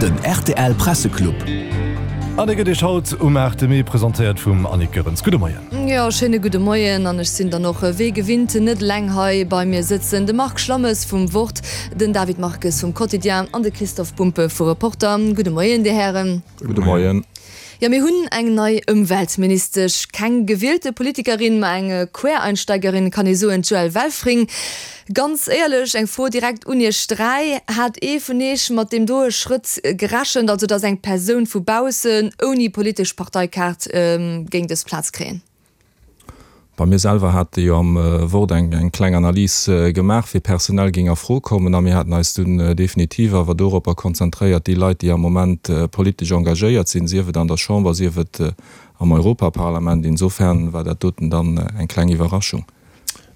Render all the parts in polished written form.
Den rtl Presseclub. An dee gëtt Iech haut um 8 Mee presentéiert vum Annick Goerens. Gudde Moien. Jo, schéine gudde Moien. An ech sinn dann och wéi gewinnt net eleng hei. Bei mir sëtzen de Marc Schlammes vum Wort, den David Marques vum Quotidien an de Christophe Bumpe vu Reporter. Gudde Moien, Dir Hären. Gudde Moien. Jo, mir hunn eng nei Ëmweltministesch. Keng gewielte Politikerin, ma eng Quereinsteigerin, kann ee soen, d'Joëlle Welfring. Ganz éierlech, eng Fro direkt un Iech 3, Hat ee vun Iech mat deem doe Schrëtt gerechent, also datt eng Persoun vu baussen, ouni politesch Parteikaart, géing dës Plaz kréien? Bei mir selwer hate jo am Wort eng kleng Analys gemaach, wie personell géing a Fro kommen. A mir haten eis dunn definitiv awer doropper konzentréiert, déi Leit, déi am Moment politesch engagéiert sinn, sief et an der Chamber, sief et am Europaparlament. Insofern war dat doten dann eng kleng Iwwerraschung.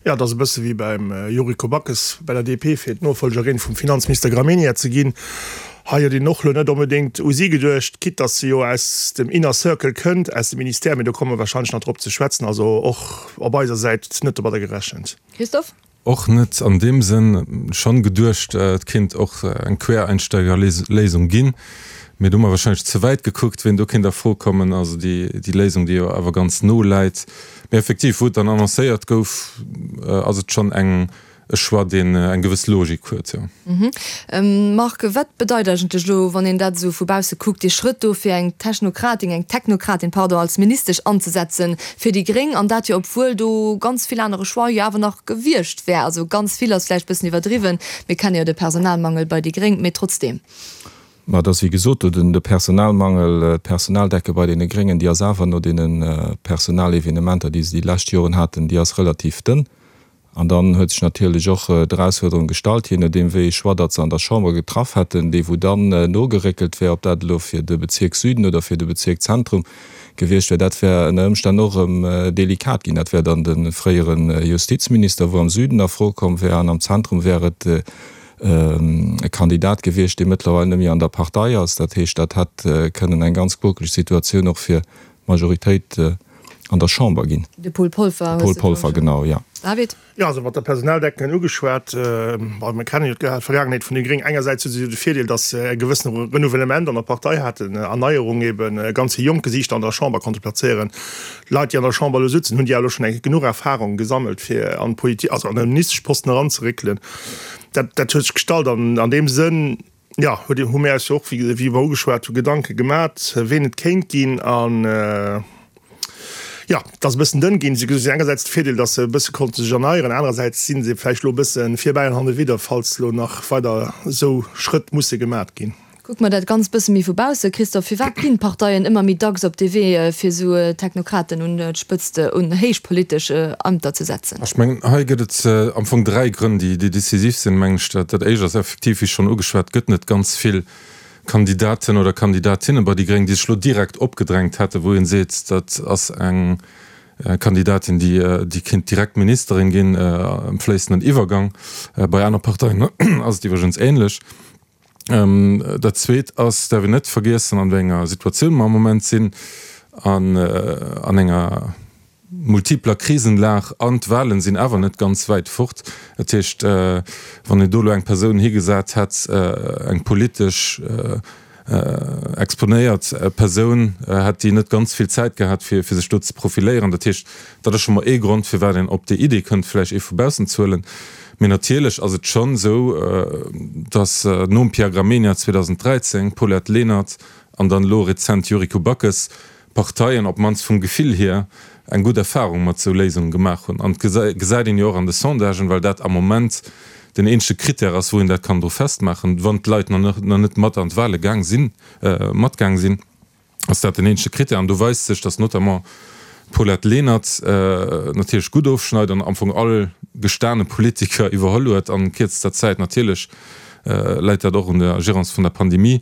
Jo, et ass e bësse wéi beim Yuriko Backes bei der DP, fir d'Nofollgerin vum Finanzminister Gramegna ze ginn. Hei huet een och elo net onbedéngt u si geduecht, quitte datt se jo aus dem Inner Circle kënnt, aus dem Ministère, mee do komme mer warscheinlech nach drop ze schwätzen. Also och op eiser Säit net domadder gerechent. Christophe? Och net an deem Sënn. Schonn geduecht, et kéint och eng Quereinsteigerléisung ginn, mee do hu mer warscheinlech ze wäit gekuckt, wien do kéint a Fro kommen. Also déi Léisung, déi jo awer ganz no läit. Mee effektiv, wou et dann annoncéiert gouf, ass et schonn eng e Choix, deen eng gewëss Logik huet, jo. Marc, wat bedeit eigentlech elo, wann een dat esou vu bausse kuckt, dee Schrëtt do, fir eng Technokratin, eng Technokratin, pardon, als Ministesch anzesetzen fir déi Gréng, an dat jo obwuel do ganz vill anere Choix jo awer nach gewiescht wär? Also ganz vill ass vläicht e bëssen iwwerdriwwen, mir kenne jo de Personalmangel bei déi Gréng, mee trotzdeem. Mä et ass wéi gesot, do den de Personalmangel, d'Personaldecke bei deene Gréngen, déi ass awer no deene Personalevenementer, déi se déi lescht Joren haten, déi ass relativ dënn. An dann huet sech natierlech och d'Erausfuerderung gestallt, jee nodeem wéi ee Choix datt se an der Chamber getraff hätten, dee wou dann nogeréckelt wär, ob dat elo fir de Bezierk Süden oder fir de Bezierk Zentrum gewiescht wär, dat wär ënner Ëmstänn och erëm delikat ginn. Dat wär dann de fréiere Justizminister, wou am Süden a Fro komm wär, an am Zentrum wär et e Kandidat gewiescht, dee mëttlerweil net méi an der Partei ass. Dat heescht, dat hätt kënnen eng ganz quokeleg Situatioun och fir d'Majoritéit an der Chamber ginn. De Paul Polfer hues de Paul Polfer, genau, jo. David? Jo, also mat der Personaldecken ugeschwat, bon, mir kennen jo d'Vergaangenheet vun de Gréng. Engersäits hu se jo de Virdeel, datt se e gewëssene Renouvellement an der Partei haten, Erneierung eben, ganz vill jonk Gesiichter an der Chamber konnte plazéieren. Leit, déi an der Chamber elo sutzen, hunn déi elo schonn eng genuch Erfahrung gesammelt, fir an d'Politik, also an e Ministeschposten eranzeréckelen. Dat, dat huet sech gestallt an an deem Sënn, jo, huet, hu mir eis jo och, wéi, wéi mer ugeschwat hu, Gedanke gemat, ween et kéint ginn. An, jo, et ass e bëssen dënn ginn. Si hunn engersäits de Virdeel, datt se e bësse konnte sech erneieren, anerersäits si se vläicht elo e bësse virbäi an hannewidder, falls elo nach weider esou Schrëtt musse gemat ginn. Kucke mer dat Ganzt bësse méi vu bausse, Christophe, firwat ginn d'Parteien ëmmer méi dacks op dee Wee, fir esou Technokraten un d'Spëtzt, un héich politesch Ämter ze setzen? Ech mengen, hei gëtt et am Fong 3 Grënn, déi décisif sinn, mengen ech. Dat éischt ass effektiv, wéi schonn ugeschwat, et gëtt net ganz vill Kandidaten oder Kandidatinne bei déi Gréng, déi sech elo direkt opgedrängt hätten, wou ee seet, dat ass eng Kandidatin, déi kéint direkt Ministerin ginn, am fléissenden Iwwergang. Bei aner Parteien ass et iwwregens ähnlech. Dat Zweet ass, däerf een net vergiessen, an wéi enger Situatioun mer am Moment sinn, an an enger multipler Krisenlag, an d'Wahlen sinn awer net ganz wäit fort. Dat heescht, wann een do elo eng Persoun higesat hätt, eng politesch exponéiert Persoun, hätt déi net ganz vill Zäit gehat, fir sech do ze profiléieren. Dat heescht, dat ass scho mol ee Grond, firwat een op déi Idee kënnt, vläicht ee vu baussen ze huelen. Mee natierlech ass et schonn esou, datt nom Pierre Gramegna 2013, Paulette Lenert an dann elo rezent Yuriko Backes, Parteien, op d'mannst vum Gefill hier, eng gutt Erfahrung mat esou Léisunge gemaach hunn. An et gesäit een jo och an de Sondagen, well dat am Moment den eenzege Critère ass, wou een dat kann dru festmaachen, wann d'Leit nach net mat an d'Wahle gaang sinn, matgaang sinn. ass dat den eenzege Critère. An do weist sech, datt notamment d'Paulette Lenert natierlech gutt ofschneit an am Fong all gestane Politiker iwwerholl huet an kierzester Zäit. Natierlech läit dat och un der Gerance vun der Pandemie.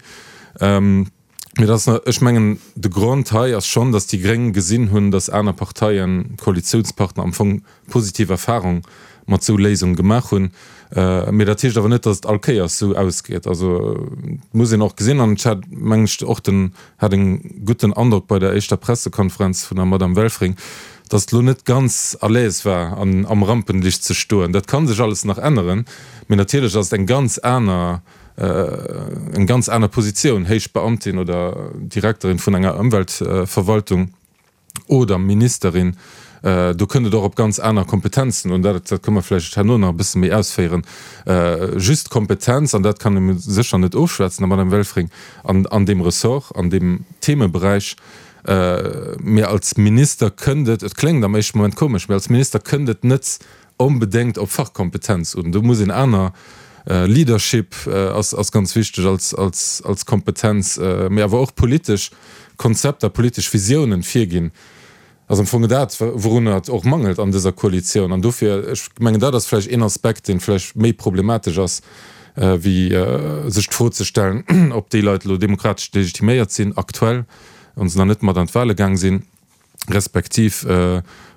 Mee dat ass, ech mengen, de Grond hei ass schonn, datt déi Gréng gesinn hunn, datt aner Parteien, Koalitiounspartner am Fong positiv Erfahrung mat sou Léisungen gemaach hunn. Mee dat heescht awer net, datt et all Kéiers sou ausgeet. Also et muss een och gesinn, an ech hat, mengen ech, och den, hat en gutten Androck bei der éischter Pressekonferenz vun der Madame Welfring, datt et elo net ganz à l'aise war an am Rampenlicht ze stoen. Dat ka sech alles nach änneren, mee natierlech ass et eng ganz aner. eng ganz aner Positioun, héich Beamtin oder Direkterin vun enger Ëmweltverwaltung oder Ministerin. Do kënnt et och op ganz aner Kompetenzen un. Dat kënne mer vläicht herno nach e bësse méi ausféieren. Just d'Kompetenz, an dat kann ee sécher net ofschwätzen der Madame Welfring, an deem Ressort, an deem Themeberäich, Mee als Minister kënnt et, et kléngt am éischte Moment komesch, mee als Minister kënnt et net onbedéngt op Fachkompetenz un. Do muss een aner, Leadership ass ass ganz wichteg als als als Kompetenz, mee awer och politesch Konzepter, politesch Visiounen virginn. Ass am Fong dat, wourunner et och mangelt an dëser Koalitioun. An dofir, ech mengen, dat ass vläicht een Aspekt, dee vläicht méi problematesch ass, wéi sech d'Fro ze stellen, ob déi Leit elo demokratesch legitiméiert sinn aktuell, wa se nach net mat an d'Wahle gaang sinn, respektiv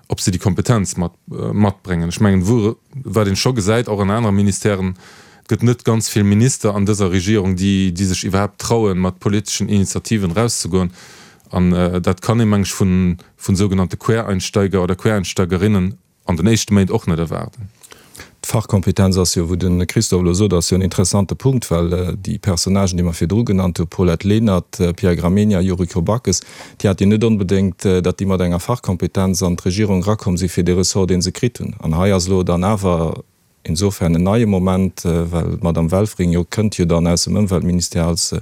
ob se déi Kompetenz mat matbréngen. Ech mengen, wou, wat een scho gesäit, och an anere Ministèren, et gëtt net ganz vill Minister an dëser Regierung, déi, déi sech iwwerhaapt trauen, mat politeschen Initiativen erauszegoen. An dat kann ee, meng ech, vun, vun sougenannte Quereinsteiger oder Quereinsteigerinnen an den éischte Méint och net erwaarden. D'Fachkompetenz ass jo, wou de Christophe elo sot, ass jo en interessante Punkt, well déi Personnagen, déi mer virdru genannt hu, Paulette Lenert, Pierre Gramegna, Yuriko Backes, déi hat jo net onbedéngt, datt déi mat enger Fachkompetenz an d'Regierung erakomm si fir dee Ressort, dee se kritt hunn. An hei ass elo dann awer insofern en neie Moment, well d'Madame Welfring jo kënnt jo dann aus dem Ëmweltministère als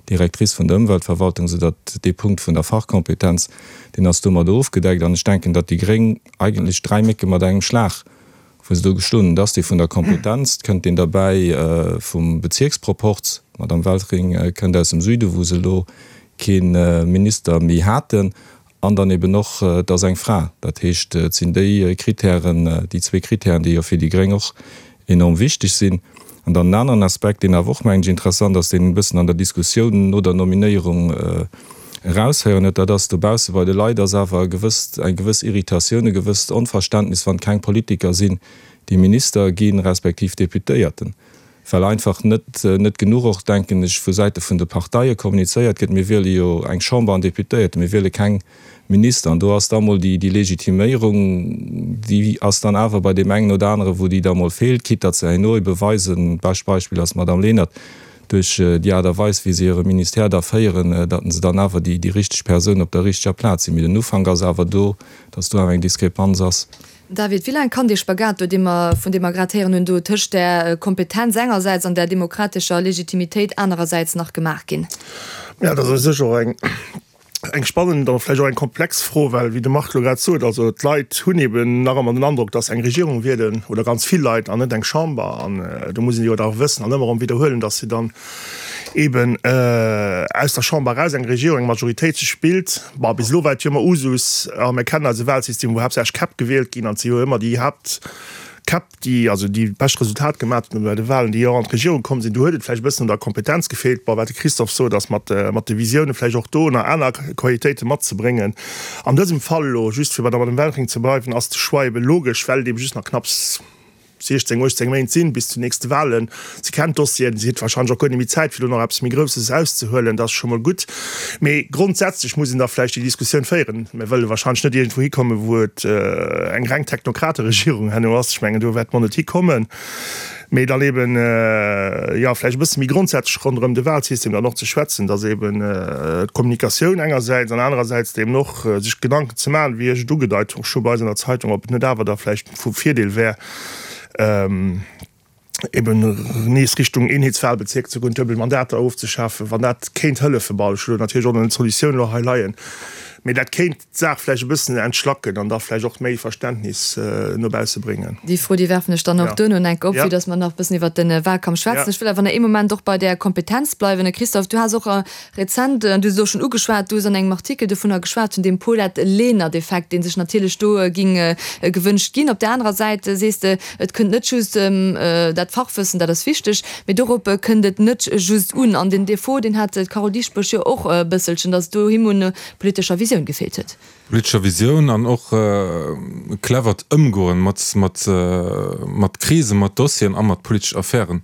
Directrice vun der Ëmweltverwaltung, soudatt dee Punkt vun der Fachkompetenz, deen ass domadder ofgedeckt. An ech denken, datt déi Gréng eigentlech 3 Mécke mat engem Schlag, wou se do geschloen hunn. Et ass dee vun der Kompetenz, et kënnt deen derbäi vum Bezierksproporz, d'Madame Welfring kënnt aus dem Süden, wou se elo kee Minister méi haten, an dann eben och, et ass eng Fra. Dat heescht, et sinn déi Kritären, déi zwee Kritären, déi jo fir déi Gréng och enorm wichteg sinn. An dann en aneren Aspekt, deen awer och, mengen ech, interessant ass, deen een e bëssen an der Diskussioun no der Nominéierung eraushéieren huet, dat ass, dobausse bei de Leit ass awer e gewësst, eng gewëss Irritatioun, e gewësst Onverständnis, wann keng Politiker sinn, déi Minister ginn, respektiv Deputéierten, well einfach net, net genuch och, denken ech, vu Säite vun de Parteie kommunizéiert gëtt, mir wiele jo eng Chamber an Deputéierte, mir wiele keng Minister. An do ass da mol déi Legitiméierung, déi ass dann awer bei deem engen oder anere wou déi da mol feelt, quitte datt se herno ebe weisen, bescht Beispill ass d'Madame Lenert, duerch déi Aart a Weis wéi se hire Ministère da féieren, datt se dann awer déi richteg Persoun op der richteger Plaz sinn. Mee den Ufank ass awer do, datt do awer eng Diskrepanz ass. David, wéi laang kann dee Spagat do, dee mer, vun deem mer grad héieren hunn, do tëscht där Kompetenz engersäits an där demokratescher Legitimitéit anerersäits nach gemaach ginn? Jo, dat ass u sech och eng Eng spannend an vläicht och eng komplex Fro, well wéi de Marc elo grad sot, also d'Leit hunn eben nach ëmmer den Androck, datt se eng Regierung wielen, oder ganz vill Leit, an net eng Chamber. An do muss een jo da wëssen an ëmmer erëm widderhuelen, datt se dann eben aus der Chamber eraus eng Regierung, eng Majoritéit sech bilt. Bon, bis elo war et jo ëmmer Usus, a mir kennen eise Wahlsystem, wou haaptsächlech Käpp gewielt ginn, an et si jo ëmmer déi Haaptkäpp, déi also déi bescht Resultat gemat hunn bei de Wahlen, déi och an d'Regierung komm sinn. Do huet et vläicht e bëssen un der Kompetenz gefeelt. Bon, wat de Christophe sot, ass mat mat de Visiounen vläicht och do nach aner Qualitéite matzebréngen. An dësem Fall elo, just fir bei der Madame Welfring ze bleiwen, ass de Choix ebe logesch, well et ebe just nach knapps 16, 18 Méint sinn bis zu nächste Wahlen. Si kennt d'Dossieren, si huet wahrscheinlech och guer net méi Zäit, fir do nach eppes méi Grousses erauszehuelen. Dat ass scho mol gutt. Mee grondsätzlech muss een da vläicht déi Diskussioun féieren. Mir wëlle wahrscheinlech net iergendwou hikommen, wou et eng reng Technokrateregierung herno ass. Ech mengen, do wäerte mer net hikommen. Mee dann eben, jo, vläicht e bësse méi grondsätzlech ronderëm de Wahlsystem dann och ze schwätzen, dass eben d'Kommunikatioun engersäits an anerersäits eben och sech Gedanken ze maachen, wéi ech et ugedeit hu scho bei eis an der Zeitung, ob et net awer da vläicht vu Virdeel wär, eben nees Richtung Eenheetswahlbezierk ze goen, duebel Mandater ofzeschafen, wann dat kéint hëllefen. Bon, ech hu natierlech och nach net d'Solutioun elo hei leien, mee dat kéint d'Saach vläicht e bëssen entschlacken an da vläicht och méi Verständnis no bausse bréngen. Déi Fro, déi werfen ech dann och duerno enk op, vue dass mer nach e bëssen iwwert de Wahlkampf schwätzen. Ech wëll awer nach ee Moment och bei där Kompetenz bleiwen. Christophe, du has och Rezent, du hues et och schonn ugeschwat, du hues an engem Artikel dovunner geschwat, vun deem Paulette Lenert-Effekt, dee sech natierlech do ging gewënscht ginn. Op där anerer Säit sees de, et kënnt net just dat Fachwëssen, dat ass wichteg, mee dorop kënnt et net just un. An den Defaut, deen hat d'Carole Dieschbourg jo och e bësselchen, datt et do him un politescher Visioun gefeelt huet. Politescher Visioun an och e clevert Ëmgoen mat Krisen, mat Dossieren a mat politesch Affären.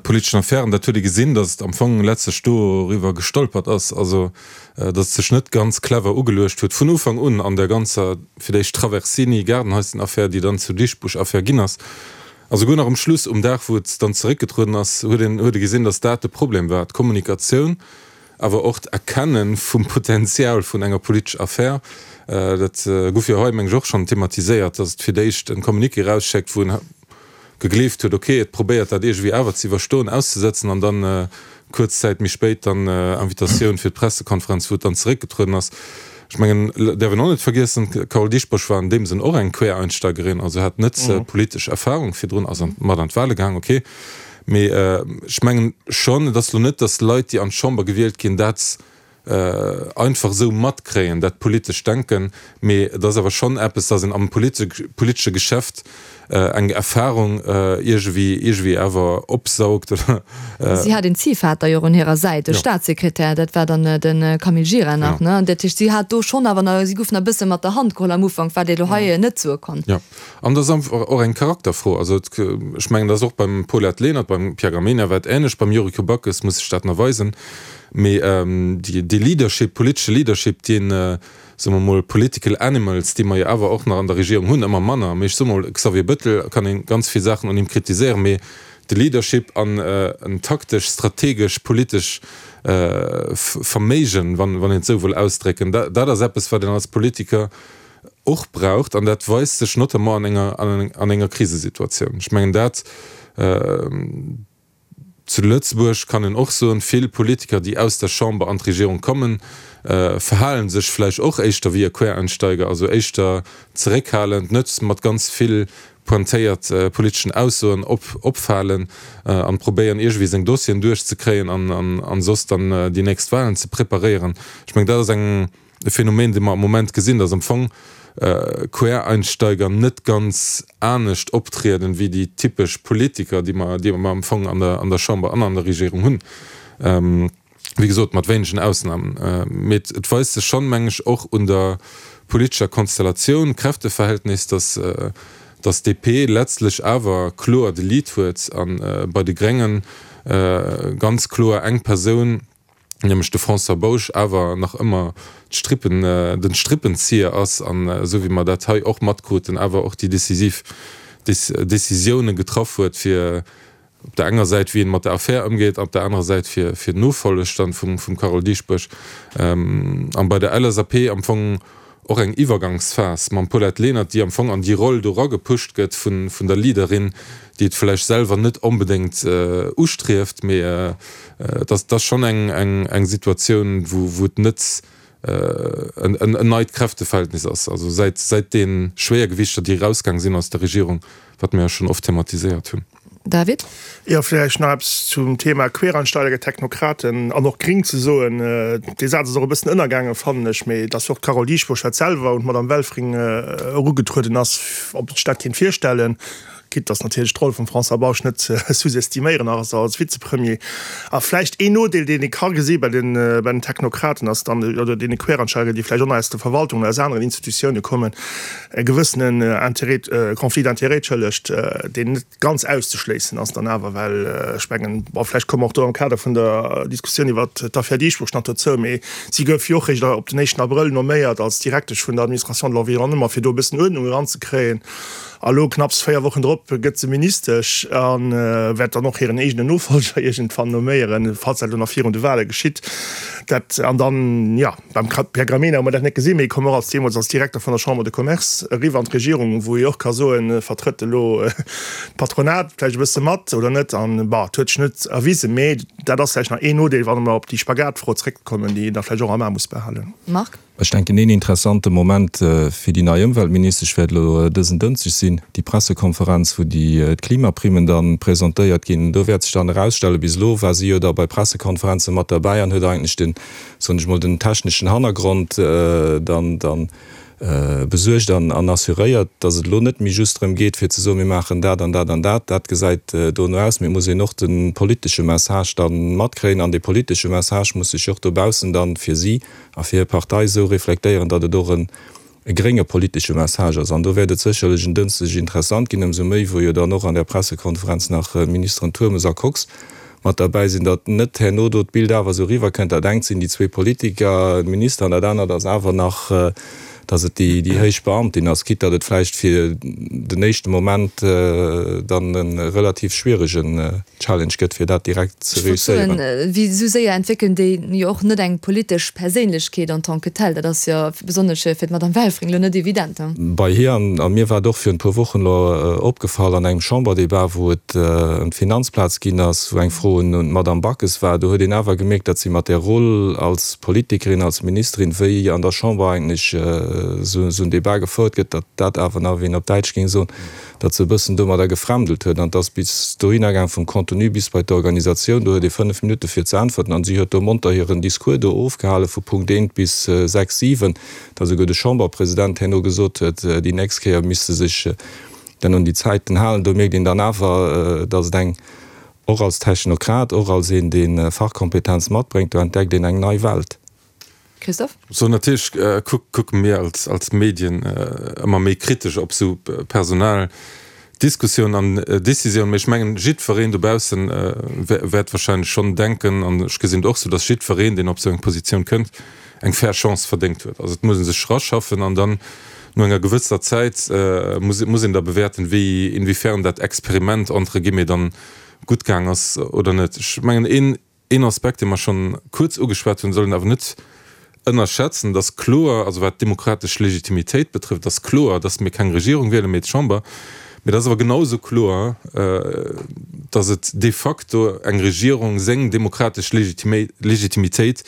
Politeschen Affären, dat huet ee gesinn, datt et am Fong letztlech doriwwer gestolpert ass, also datt et sech net ganz clever ugeluecht huet vun Ufank un an der ganzer, fir d'éischt Traversini-Gaardenhäuschen-Affär, déi dann zur Dieschbourg-Affär ginn ass. A souguer nach um Schluss, um Dag wou et dann zeréckgetrueden ass, huet een huet ee gesinn, datt dat de Problem war, d'Kommunikatioun, awer och d'Erkenne vum Potenzial vun enger politesch Affär. Dat gouf jo hei, meng ech, och schonn thematiséiert, datt et fir d'éischt e Communiqué erausschéckt, wou en gegleeft huet, ok, et probéiert dat iergendwéi awer ze iwwerstoen, auszesëtzen, an dann kuerz Zäit méi spéit dann Invitatioun fir d'Pressekonferenz, wou et dann zeréckgetrueden ass. Ech mengen, däerf een och net vergiessen, d'Carole Dieschbourg war an deem Sënn och eng Quereinsteigerin, also hat net politesch Erfahrung virdrun, ass mat an d'Wahle gaang, ok. Mee ech mengen schonn, et ass elo net, datt Leit, déi an d'Chamber gewielt ginn, dat einfach esou matkréien, dat politescht Denken, mee et ass awer schonn eppes, datt een am politesche Geschäft eng Erfahrung iergendwéi, iergendwéi awer opsaugt oder. Si hat een Ziehvater jo och un hirer Säit, e Staatssekretär, dat war dann de Camille Gira nach, ne? Dat heescht, si hat do schonn awer nach, si gouf nach e bësse mat der Hand geholl am Ufank, wat ee lo hei net soe kann. Jo, an dat ass einfach och eng Charakterfro. Also ech mengen, dat ass och beim Paulette Lenert, beim Pierre Gramegna war et änlech, beim Yuriko Backes muss sech dat nach weisen. Mee dee Leadership, politesche Leadership, deen, soe mer mol, political animals, déi mer jo awer och nach an der Regierung hunn, ëmmer manner, mee ech soe mol, Xavier Bettel, kann ee ganz vill Saachen un him kritiséieren, mee de Leadership an en taktesch, strategesch, politesch Verméigen, wann een et esou wëll ausdrécken, dat ass eppes, wat een als Politiker och braucht. An dat weist sech notamment an enger Krisesituatioun. Ech mengen dat. Zu Lëtzebuerg kann een och soen, vill Politiker, déi aus der Chamber an d'Regierung kommen, verhale sech vläicht och éischter wéi e Quereinsteiger, also éischter zeréckhalend, net mat ganz vill pointéiert politeschen Aussoen opfalen an probéieren iergendwéi seng Dossieren duerchzekréien an soss dann déi nächst Wahlen ze preparéieren. Ech mengen, dat ass eng. E Phänomen, dee mer am Moment gesinn, dass am Fong Quereinsteiger net ganz anescht optrieden, wéi déi typesch Politiker, déi mer, déi mer am Fong an der, an der Chamber an an der Regierung hunn. Wéi gesot, mat wéinegen Ausnahmen. Mee et weist sech schonn, meng ech, och un der politescher Konstellatioun, Kräfteverhältnis, dass, dass d'DP letztlech awer kloer de Lead huet a bei de Gréngen ganz kloer eng Persoun, nämlech de François Bausch awer nach ëmmer d'Strippen, den Strippenzieher ass an, esou wéi mer dat hei och matkruten, awer och déi decisiv Décisioune getraff huet, fir op der enger Säit wéi een mat der Affär ëmgeet, op der anerer Säit fir fir d'Nofolleg dann vum vum Carole Dieschbourg. An bei der LSAP am Fong och eng Iwwergangsphas mam Paulette Lenert, déi am Fong an déi Roll do eragepusht gëtt vun der Leaderin, déi et vläicht selwer net onbedéngt ustrieft, mee et ass et ass schonn eng eng Situatioun, wou wou et net en neit Kräfteverhältnis ass, also säit säit de Schwéiergewichter, déi erausgaang sinn aus der Regierung, wat mir jo schonn oft thematiséiert hunn. David? Jo, vläicht nach eppes zum Thema Quereinsteiger, Technokraten an och Gring ze soen. Dee Saz ass och e bëssen ënnergaangen, fannen ech, mee dass och d'Carole Dieschbourg dat selwer un d'Madame Welfring erugetrueden ass, ob sech dat kéint virstellen, quitte dass natierlech d'Roll vum François Bausch net ze sous-estiméieren ass als Vizepremier. A vläicht een Nodeel, deen ee ka gesi bei den, bei den Technokraten ass dann, oder deene Quereinsteiger, déi vläicht och nach aus der Verwaltung oder aus aneren Institutioune kommen, e gewëssenen Intérêt, Conflit d'intérêts, entschëllegt, deen net ganz auszeschléissen ass dann awer, well ech mengen, bon, vläicht komme mer och do am Kader vun der Diskussioun iwwert d'Affär Dieschbourg nach dozou, mee si gouf jo och réischt op den éischten Abrëll nomméiert als Direktesch vun der Administration de l'environnement, fir do e bëssen Uerdnung eranzekréien. A lo, knapps 4 Wochen drop, gëtt se Ministesch a wäert dann och hiren eegenen Nofolger iergendwann nomméieren, falls dat elo nach virun de Wahle geschitt. Dat, an dann, jo. Beim Pierre Gramegna hu mer dat net gesinn, mee e koum och als deemools als Direkter vun der Chambre de Commerce eriwwer an d'Regierung, wou ee och ka soen, vertrëtt elo d'Patronat vläicht e bësse mat oder net. An, bon, et huet sech net erwisen, mee dat ass vläicht nach een Nodeel, wann mer op déi Spagatfro zréckkommen, déi een da vläicht och am A muss behalen. Marc. Ech denken, een interessante Moment fir déi nei Ëmweltministesch wäert elo dësen Dënschdeg sinn, déi Pressekonferenz, wou déi d'Klimaprimen da presentéiert ginn. Do wäert sech dann erausstellen, bis elo war si jo da bei Pressekonferenze mat derbäi an huet eigentlech den, soen ech mol, den techneschen Hannergrond dann dann besuergt an an assuréiert, datt et elo net méi just drëm geet fir ze soen, mir maachen dat an dat an dat, dat gesäit dono aus, mee et muss een och de politesche Message da matkréien an dee politesche Message muss sech och dobaussen dann fir si a fir hir Partei esou reflektéieren, datt et och en e grénge politesche Message ass. An do wäert et sécherlech en Dënschdeg interessant ginn, ëmsou méi wou jo dann och an där Pressekonferenz nach d'Ministeren Turmes a Kox mat derbäi sinn, datt net herno do d'Bild awer esou eriwwerkënnt, dat engt sinn déi zwee Politiker, d'Minister, an dat anert ass awer nach. Datt et déi héich Beamtin ass, quitte datt et vläicht fir den éischte Moment dann e relativ schwieregen Challenge gëtt, fir dat direkt ze Ech wollt soen, réusséieren. wéi esou séier entwéckelen déi jo och net eng politesch Perséinlechkeet en tant que telle. Dat ass jo besonnesch fir d'Madame Welfring elo net evident. Bei hir, an mir war et och virun e puer Wochen elo opgefall an engem Chamberdebat, wou et ëm d'Finanzplaz ginn ass, wou eng Fro un d'Madame Backes war, do huet een awer gemierkt, datt si mat där Roll als Politikerin, als Ministerin, wéi an der Chamber eigentlech esou en Debat gefouert gëtt, datt dat awer nach, wéi een op Däitsch géing soen, datt se e bëssen domadder gefremdelt huet. An et ass bis dohinner gaang, vum Contenu bis bei d'Organisatioun, do huet ee 5 Minutte fir ze äntwerten an si huet do monter hiren Discours do ofgehale vu Punkt eent bis 6, 7, datt esouguer de Chamberpresident herno gesot huet, déi nächst Kéier misst se sech dann un déi Zäiten halen. Do mierkt een dann awer, datt et eng, och als Technokrat, och als een, dee Fachkompetenz matbréngt, do entdeckt een eng nei Welt. Christophe? So natierlech kucke mir als Medien ëmmer méi kritesch op esou Personaldiskussiounen an Décisiounen. Mee ech mengen, jiddwereen dobausse wäert wahrscheinlech schonn denken, an ech gesinn et och esou, datt jiddwereen, deen op esou eng Positioun kënnt, eng fair Chance verdéngt huet. Also et muss ee sech eraschaffen an dann no enger gewësser Zäit muss een da bewäerten, wéi, inwiefern dat Experiment entre guillemets dann gutt gaang ass oder net. Ech mengen, een Een Aspekt, dee mer schonn kuerz ugeschwat hunn, soll een awer net ënnerschätzen, Et ass kloer, also wat d'demokratesch Legitimitéit betrëfft, ass kloer, dass mir keng Regierung wielen, mee d'Chamber. Mee et ass awer genau esou kloer, dass et de facto eng Regierung seng demokratesch Legitimitéit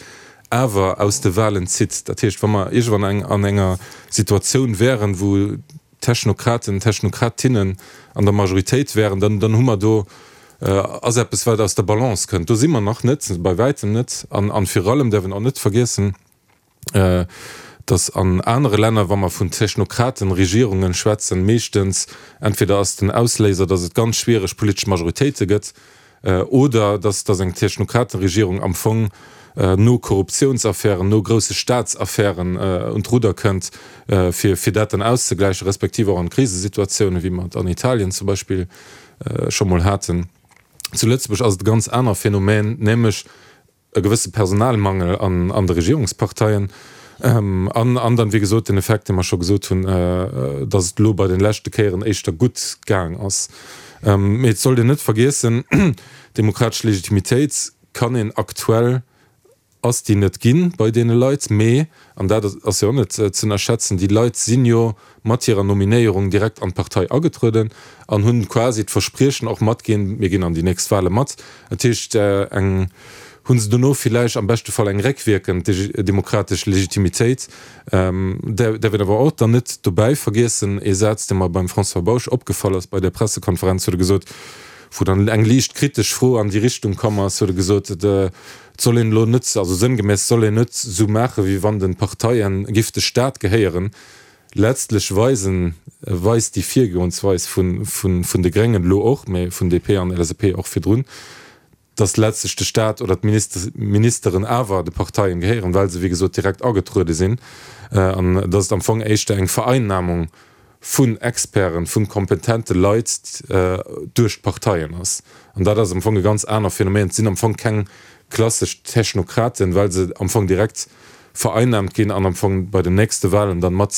awer aus de Wahlen zitt. Dat heescht, wa mer iergendwann an enger Situatioun wären, wou Technokraten, Technokratinnen an der Majoritéit wären, dann, dann hu mer do, ass eppes, wat aus der Balance kënnt. Do si mer nach net, bei wäitem net. An, an virun allem däerf een och net vergiessen, dass an anere Länner, wa mer vun Technokratenregierungen schwätzen, meeschtens entweder ass den Ausléiser, dass et ganz schwiereg politesch Majoritéite gëtt, Oder dass dass eng Technokratenregierung am Fong no Korruptiounsaffären, no grousse Staatsaffären un d'Rudder kënnt, fir fir dat dann auszegläichen, respektiv och an Krisesituatiounen, wéi mer et an Italien zum Beispill scho mol haten. Zu Lëtzebuerg ass et e ganz aner Phänomen, nämlech, e gewësse Personalmangel an de Regierungsparteien an an dann, wéi gesot, den Effekt, dee mer scho gesot hunn, datt et elo bei de leschte Kéieren éischter gutt gaang ass. Mee et sollt een net vergiessen, Demokratesch Legitimitéit kann een aktuell, ass déi net ginn bei deene Leit, mee, an dat ass jo och net ze ënnerschätzen, déi Leit sinn jo mat hirer Nominéierung direkt an d'Partei agetrueden an hunn quasi d'Verspriechen och matginn, mir ginn an déi nächst Wahle mat. Dat heescht, eng hu se dono villäicht am beschte Fall eng réckwierkend demokratesch Legitimitéit. Däerf een awer och dann net dobäi vergiessen, ee Saz, dee mer beim François Bausch opgefall ass bei där Pressekonferenz, huet e gesot, wou dann eng liicht kritesch Fro an déi Richtung komm ass, huet e gesot, et soll een elo net, also sënngemäss soll een net esou maachen, wéi wann de Parteien giff de Staat gehéieren. Letztlech weisen, weist déi Virgoensweis vun de Gréngen elo och, mä vun DP an LSAP och virdrun, datt letztlech de Staat oder d'Ministeren awer de Parteien gehéieren, well se wéi gesot direkt agetruede sinn, an datt et am Fong éischter eng Vereinnahmung vun Experten, vu kompetente Leit duerch d'Parteien ass. An dat ass am Fong e ganz aner Phänomen. Et sinn am Fong keng klassesch Technokraten, well se am Fong direkt vereinnahmt ginn an am Fong bei den nächste Wahlen dann mat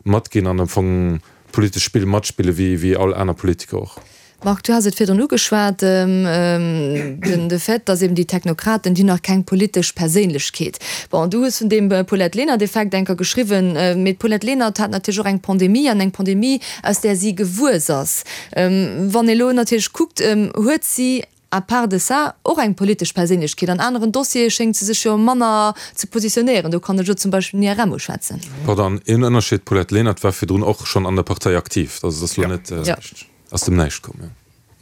matginn an am Fong d'politesch Spill matspille wéi wéi all aner Politiker och. Marc, du has et virdrun ugeschwat, den de Fait, datt eben déi Technokraten, déi hunn nach keng politesch Perséinlechkeet. Bon, du hues vun deem Paulette Lenert-Effekt enker geschriwwen, mee d'Paulette Lenert hat natierlech och eng Pandemie an eng Pandemie, aus där si gewuess ass. Wann ee lo natierlech kuckt, huet si À part de ça, och eng politesch Perséinlechkeet. An aneren Dossiere schéngt se sech jo manner ze positionéieren. Do kann ech elo zum Beispill den IRM uschwätzen. Pardon, een Ënnerscheed, D'Paulette Lenert war virdrun och schonn an der Partei aktiv. Also et ass elo net aus dem Näischt komm.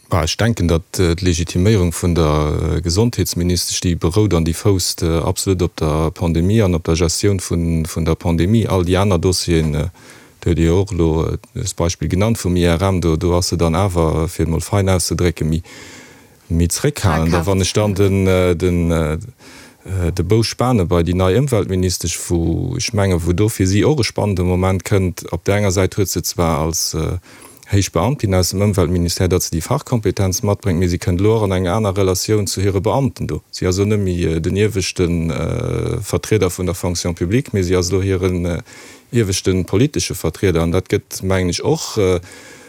Bah, ech denken, datt d'Legitiméierung vun der Gesondheetsministesch, déi berout an déi fousst absolut op der Pandemie an op der Gestioun vun der Pandemie. All déi aner Dossieren, do huet Dir jo och elo d'Beispill genannt vum IRM, do do ass se dann awer, fir et mol fein auszedrécken, méi méi zréckhalend. A wann ech dann den den de Bou spane bei déi nei Ëmweltministesch, wou ech mengen, wou do fir si och e spannende Moment kënnt, op där enger Säit huet se zwar als. Héich Beamtin aus dem Ëmweltministère, datt se déi Fachkompetenz matbréngt, mee si kënnt elo och an eng aner Relatioun zu hire Beamten do. Si ass elo net méi den ieweschte Vertrieder vun der Fonction publique, mee si ass elo hiren ieweschte politesche Vertrieder. An dat gëtt, mengen ech, och,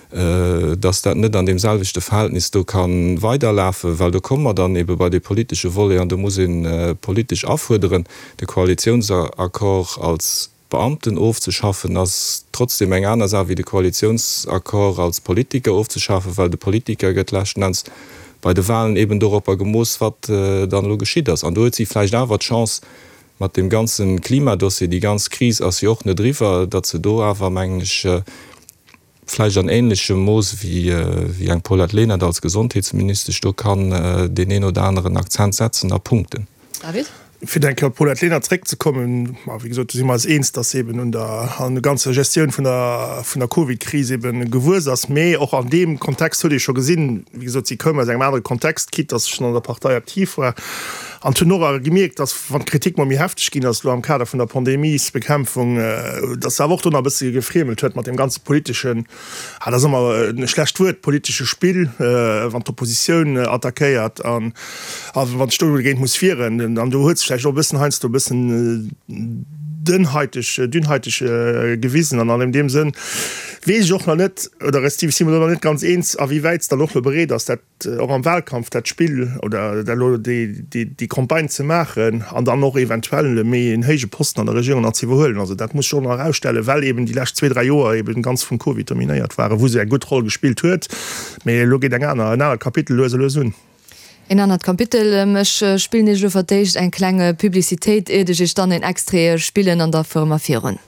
datt dat net an deem selwechte Verhältnis do ka weiderlafen, well do komme mer dann ebe bei dee politesche Volet an do muss ee politesch afuerderen, de Koalitiounsaccord als Beamten ofzeschaffen ass trotzdem eng aner Saach wéi de Koalitiounsaccord als Politiker ofzeschafen, well de Politiker gëtt leschten Enns bei de Wahlen eben doropper gemooss, wat dann elo geschitt ass. An do huet si vläicht awer d'Chance mat deem ganze Klimadossier, déi ganz Kris ass jo och net eriwwer, datt se do awer, mengen ech, vläicht an ähnlechem Mooss wéi eng Paulette Lenert als Gesondheetsministesch do kann deen een oder aneren Akzent setzen a punkten. David? Fir eng Kéier op d'Paulette Lenert zréckzekommen, ma wéi gesot, do si mer eis eens, dass se eben un der an der ganzer Gestioun vun der vun der Covidkris eben gewuess ass. Mee och an deem Kontext huet ee scho gesinn, wéi gesot, si koum aus engem anere Kontext, quitte dass se schonn an der Partei aktiv war, an hunn och awer gemierkt, dass wann d'Kritik mol méi hefteg ginn ass elo am Kader vun der Pandemiesbekämpfung, dass se awer och do nach e bësse gefriemelt huet mat deem ganze politeschen, ah, dat ass ëmmer e schlecht Wuert, politesche Spill, wann d'Oppositioun attackéiert an a wann sech do dogéint muss wieren. An do huet se vläicht och e bëssen heiansdo e bëssen dënnhaiteg, dünnhaiteg gewisen. An an deem Sënn weess ech och nach net, oder respektiv si mer do nach net ganz eens, a wéi wäit se dann och elo bereet ass, dat och am Wahlkampf dat Spill oder dat elo déi Campagne ze maachen an dann och eventuell méi en héije Posten an der Regierung nach ze iwwerhuelen. Also dat muss sech och nach erausstellen, well eben déi lescht zwee, dräi Joer eben ganz vum Covid dominéiert waren, wou se eng gutt Roll gespillt huet. Mee elo geet eng aner, en anert Kapitel lues a lues un. En anert Kapitel. Ech spillen Iech elo fir d'éischt eng kleng Publicitéit, iert ech Iech dann en Extrait spillen an da fuere mer virun.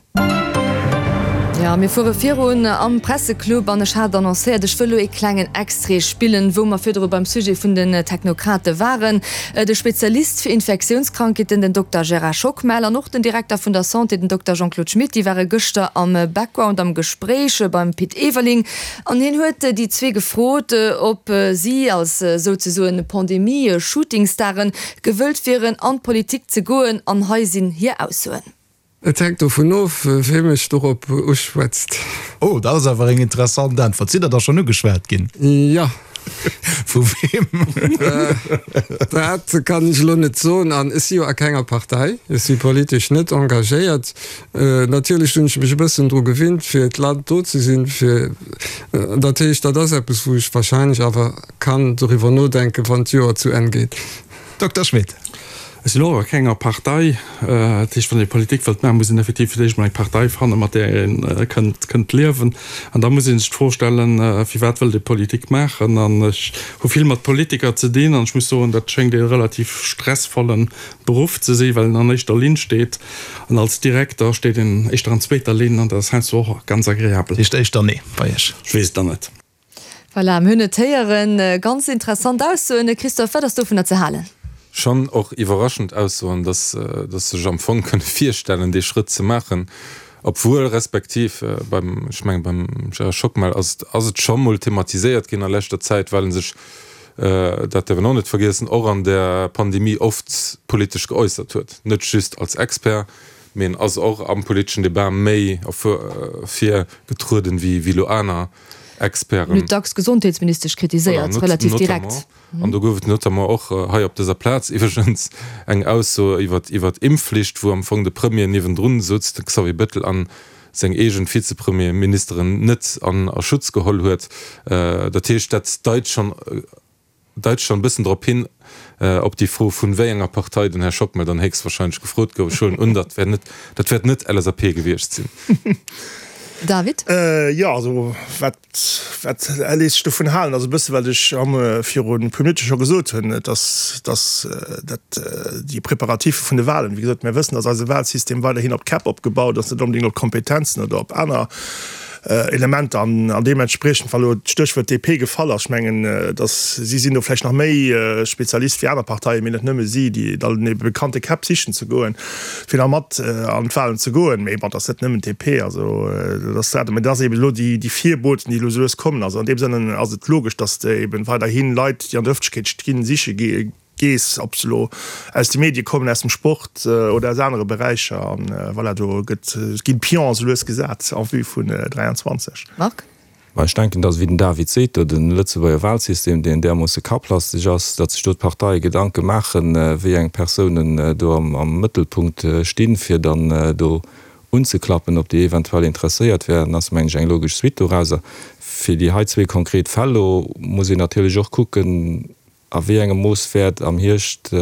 Jo, mir fuere virun am Presseclub an ech hat annoncéiert, ech wëll elo ee klengen Extrait spillen, wou mer virdru beim Sujet vun den Technokrate waren. De Spezialist fir Infektiounskrankheeten, den Dokter Gérard Schockmel, an och den Direkter vun der Santé, den Dokter Jean-Claude Schmit, déi ware gëschter am Background am Gespréich beim Pit Everling. An hien huet déi zwee gefrot, ob si als souzesoen Pandemie-Shootingstaren gewëllt wieren, an d'Politik ze goen. An hei sinn hir Aussoen. Et hänkt dovun of, wee mech dorop uschwätzt. Oh, dat ass awer eng interessant Äntwert. Sidd Der da schonn ugeschwat ginn? Jo. Vu weem? Dat kann ech elo net soen. An ech si jo a kenger Partei. Ech si politesch net engagéiert. Natierlech hunn ech mech e bëssen dru gewinnt, fir d'Land do ze sinn, fir, dat heescht, dat ass eppes, wou ech wahrscheinlech awer kann doriwwer nodenken, wann d'Joer zu Enn geet. Dokter Schmit. Ech sinn och a kenger Partei. Dat heescht, wann ee Politik wëllt maachen, muss een effektiv fir d'éischt emol eng Partei fannen, mat där ee kënnt, kënnt liewen. An da muss ee sech d'Fro stellen, firwat wëllt ee Politik maachen? An ech hu vill mat Politiker ze dinn an ech muss soen, dat schéngt ee relativ stressvolle Beruff ze sinn, well een an éischter Linn steet. An als Direkter steet een éischter an zweeter Linn an dat ass heiansdo och ganz agreabel. Dat heescht éischter Nee bei Iech? Ech weess et dann net. Voilà, mir hunn et héieren. Ganz interessant Aussoen. Christophe, wat ass dovunner ze halen? Schonn och iwwerraschend Aussoen, dass dass sech am Fong kënne virstellen, dee Schrëtt ze maachen, obwuel respektiv beim, ech menge beim Gérard Schockmel ass et ass et scho mol thematiséiert ginn a leschter Zäit, well en sech, dat däerf een och net vergiessen, och an der Pandemie oft politesch geäussert huet, net just als Expert, mee en ass och am politeschen Debat méi ervir getrueden wéi wéi elo aner Experten. Huet dacks d'Gesondheetsministesch kritiséiert, relativ direkt. An do gouf et notamment och hei op dëser Plaz iwwregens eng Ausso iwwer iwwer d'Impfflicht, wou am Fong de Premier niewendrun souz, de Xavier Bettel, a seng eegen Vizepremierministeren net an a Schutz geholl huet. Dat heescht, dat deit schonn deit schonn e bëssen drop hin, op déi Fro, vun wéi enger Partei den Här Schockmel dann héchstwahrscheinlech gefrot gouf. Ech huelen un, dat wär net, dat wäert net LSAP gewiescht sinn. David? Jo, also wat, wat léisst sech dovun halen, ass e bësse wat ech am virun e puer Minutte scho gesot hunn, dass, dass dat déi Préparatiffe vun de Wahlen, wéi gesot, mir wëssen, dass eise Wahlsystem weiderhin op Käpp opgebaut ass, net onbedéngt op Kompetenzen oder op aner Elementer an an deementspriechend, wa lo d'Stéchwuert DP gefall ass, ech mengen, datt si sinn do vläicht nach méi Spezialist wéi aner Parteien, mee net nëmme si, déi dann ebe bekannte Käpp sichen ze goen, fir da mat an d'Wahlen ze goen. Mee bon, et ass net nëmmen d'DP, also dat ass dat. Mee dat ass eben elo déi déi Virboten, déi elo esou lues kommen. Also an deem Sënn ass et logesch, datt eben weiderhi Leit, déi an der Ëffentlechkeet stinn, siche Gees, ob se elo aus de Medie kommen, aus dem Sport oder aus anere Beräicher. An voilà, do gëtt, ginn d'Pions esou lues gesat en vue vun 23. Marc? Mä ech denken, datt, wéi den David seet, do de Lëtzebuerger Wahlsystem, deen därmoosse kapplasteg ass, datt sech do d'Parteie Gedanke maachen, wéi eng Persounen do am Mëttelpunkt stinn, fir dann do unzeklappen, ob déi eventuell interesséiert wären, ass, mengen ech, eng logesch Suite dorauser. Fir déi hei zwee konkret Fäll elo muss een natierlech och kucken, A wéi engem Mooss wäert am Hierscht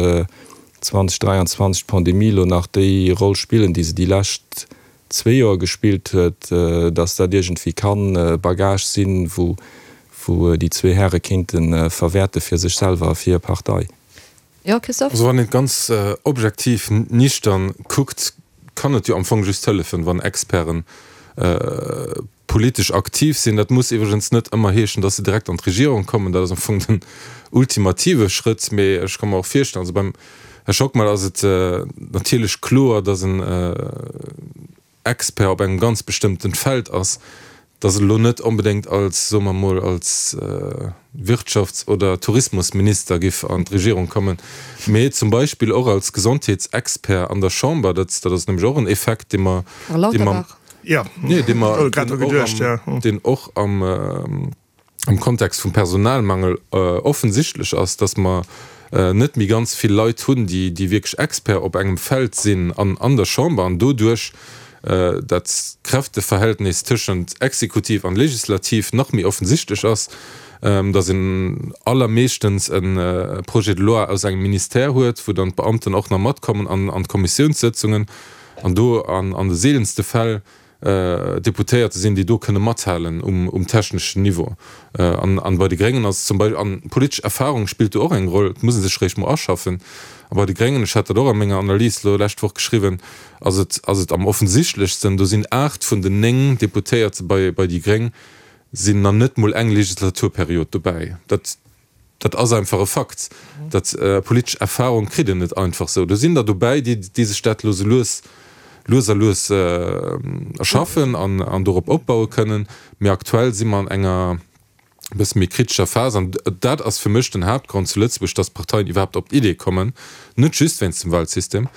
2023 d'Pandemie elo nach déi Roll spillen, déi se déi lescht zwee Joer gespillt huet, datt dat iergendwéi kann e Bagage sinn, wou déi zwee Häre kéinte verwäerte fir sech selwer a fir hir Partei? Jo, Christophe? Also wann een et ganz objektiv nichtern kuckt, kann et jo am Fong just hëllefen, wann Experten politesch aktiv sinn. Dat muss iwwregens net ëmmer heeschen, dass se direkt an d'Regierung kommen. Dat ass am Fong den ultimative Schrëtt. Mee ech ka mer och virstellen, also beim Här Schockmel ass et natierlech kloer, dass en Expert op engem ganz bestëmmten Feld ass, dass en elo net onbedéngt als, soe mer emol, als Wirtschafts oder Tourismusminister giff an d'Regierung kommen, mee zum Beispill och als Gesondheetsexpert an der Chamber. Dat ass nämlech och en Effekt, dee mer, dee mer, nee, dee mer, deen och am, am Kontext vum Personalmangel offensichtlech ass, dass mer net méi ganz vill Leit hunn, déi, déi wierklech Expert op engem Feld sinn an, an der Chamber an doduerch dat Kräfteverhältnis tëschent Exekutiv an Legislativ nach méi offensichtlech ass, dass een allermeeschtens e Projet de loi aus engem Ministère huet, wou dann d'Beamten och nach matkommen an an d'Kommissiounssëtzungen an do an an de seelenste Fäll Deputéierte sinn, déi do kënne mathalen um techneschen Niveau. An bei de Gréngen ass zum Beispill, an politesch Erfahrung spillt do och eng Roll, et muss ee sech réischt mol aschaffen. A bei de Gréngen, ech hat dat och a menger Analys elo lescht Woch geschriwwen, ass et, ass et am offensichtlechsten, do sinn 8 vun den 9 Deputéierte bei, bei déi Gréng sinn nach net mol eng Legislaturperiod dobäi. Dat. Dat ass einfach e Fakt. Dat politesch Erfahrung kritt een net einfach esou. Do sinn der dobäi, déi, déi sech dat elo sou lues, lues a lues erschaffen an, an dorop opbaue kënnen. Mee aktuell si mer an enger e bësse méi kritescher Phas. An dat ass fir mech den Haaptgrond zu Lëtzebuerg, dass d'Parteien iwwerhaapt op d'Idee kommen, net just wéinst dem Wahlsystem,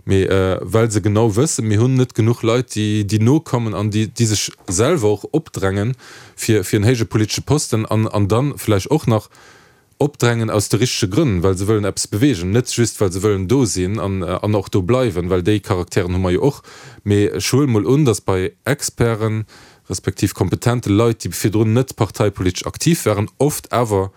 mee well se genau wëssen, mir hunn net genuch Leit, déi, déi nokommen an déi, déi sech selwer och opdrängen, fir fir en héije politesche Posten an an dann vläicht och nach opdrängen aus de richtege Grënn, well se wëllen eppes beweegen, net just well se wëllen do sinn an an och do bleiwen, well déi Charakteren hu mer jo och. Mee ech huele mol un, datt bei Experten, respektiv kompetente Leit, déi virdrun net parteipolitesch aktiv waren, oft awer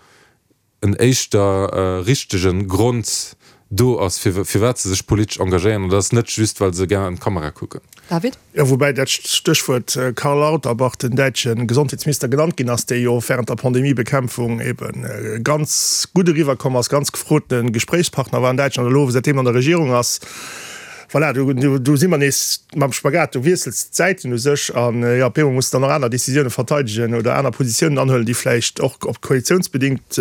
en éischter richtege Grond do ass, firwat se sech politesch engagéieren, an dat ass net just, well se gär an d'Kamera kucken. David? Jo, woubäi dat Stéchwuert Karl Lauterbach, den däitsche Gesondheetsminister, genannt ginn ass, dee jo während der Pandemiebekämpfung ebe ganz gutt eriwwerkomm ass, ganz gefrote Gespréichspartner war an Däitschland, elo säitdeem an der Regierung ass. Voilà, do, do si mer nees mam Spagat, du wiessels d'Säiten u sech an, jo, op eemol muss de dann och aner Décisioune verteidegen oder aner Positiounen anhuelen, déi vläicht och op koalitiounsbedingt,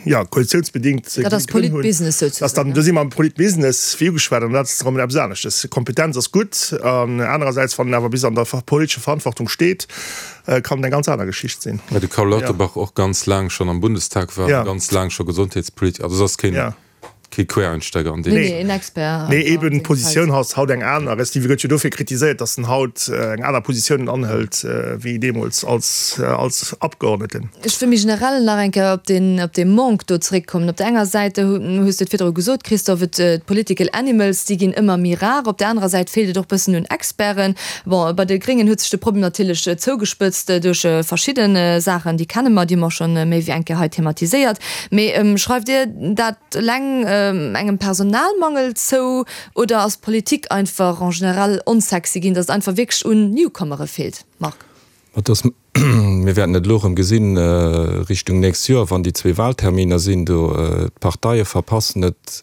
jo, koalitiounsbedingt Dat ass Grënn hunn. Politbusiness souzesoen, Dass dann, do si mer am Politbusiness, wéi ugeschwat, an dat ass erëm eppes aneschtes. Kompetenz ass gutt an anerersäits, wann en awer bis an der politescher Verantwortung steet, kann et eng ganz aner Geschicht sinn. Well de Karl Lauterbach och ganz laang schonn am Bundestag war a ganz laang scho Gesondheetspolitiker, also ass keen. Kee Quereinsteiger an deem Nee, nee, en Expert. Nee, eben d'Positioun ass haut eng aner. Respektive gëtt jo dofir kritiséiert, datt en haut eng aner Positioun anhëlt wéi deemools als, als Abgeordneten. Ech wëll méi generell nach eng Kéier op deen, op dee Manque do zeréckkommen. Op der enger Säit, hues de et virdru gesot, Christophe, et, d'political animals, déi ginn ëmmer méi rar. Op der anerer Säit feelt et och bëssen un Experten. Bon, bei de Gréngen huet sech de Problem natierlech zougespëtzt duerch verschidde Saachen, déi kenne mer, déi hu mer och scho méi wéi eng Kéier hei thematiséiert. Mee schreift Dir dat eleng engem Personalmangel zou oder ass d'Politik einfach en général onsexy ginn, datt et einfach wierklech un Newcomere feelt? Marc. Ma dass, mir wäerten et elo erëm gesinn Richtung nächst Joer, wann déi zwee Wahlterminer sinn do, d'Parteie verpassen et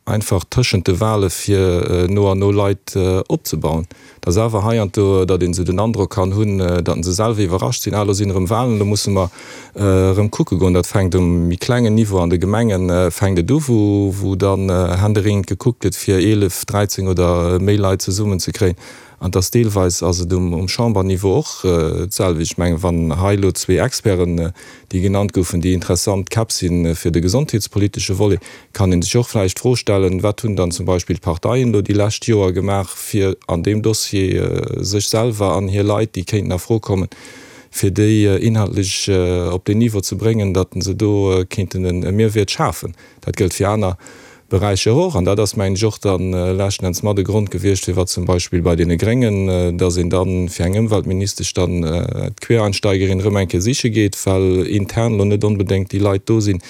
einfach tëschent de Wahle fir no an no Leit opzebauen. Et ass awer heiansdo, datt een esou den Androck kann hunn, datt se selwer iwwerrascht sinn, ah elo sinn erëm Wahlen, elo musse mer erëm kucke goen. Dat fänkt um méi klengen Niveau an de Gemengen fänkt et u, wou dann händeringend gekuckt gëtt fir 11, 13 oder méi Leit zesummen ze kréien. An et ass deelweis ass et um Chamberniveau och d'selwecht. Ech mengen, wann hei elo zwee Experten, déi genannt goufen, déi interessant Käpp si fir de gesondheetspolitesche Volet, kann ee sech och vläicht d'Fro stellen, Wat hunn dann zum Beispill d'Parteien elo déi lescht Joer gemaach, fir an deem Dossier sech selwer an hir Leit, déi kéinten a Fro kommen, fir déi inhaltlech op deen Niveau ze bréngen, datt se do kéinten e Mehrwert schafen? Dat gëllt fir aner Beräicher och. An dat ass, mengen ech, och da leschten Enns mat e Grond gewiescht, firwat zum Beispill bei deene Gréngen, datt een da fir eng Ëmweltministesch dann d'Quereinsteigerin erëm eng Kéier siche geet, well intern elo net onbedéngt déi Leit do sinn,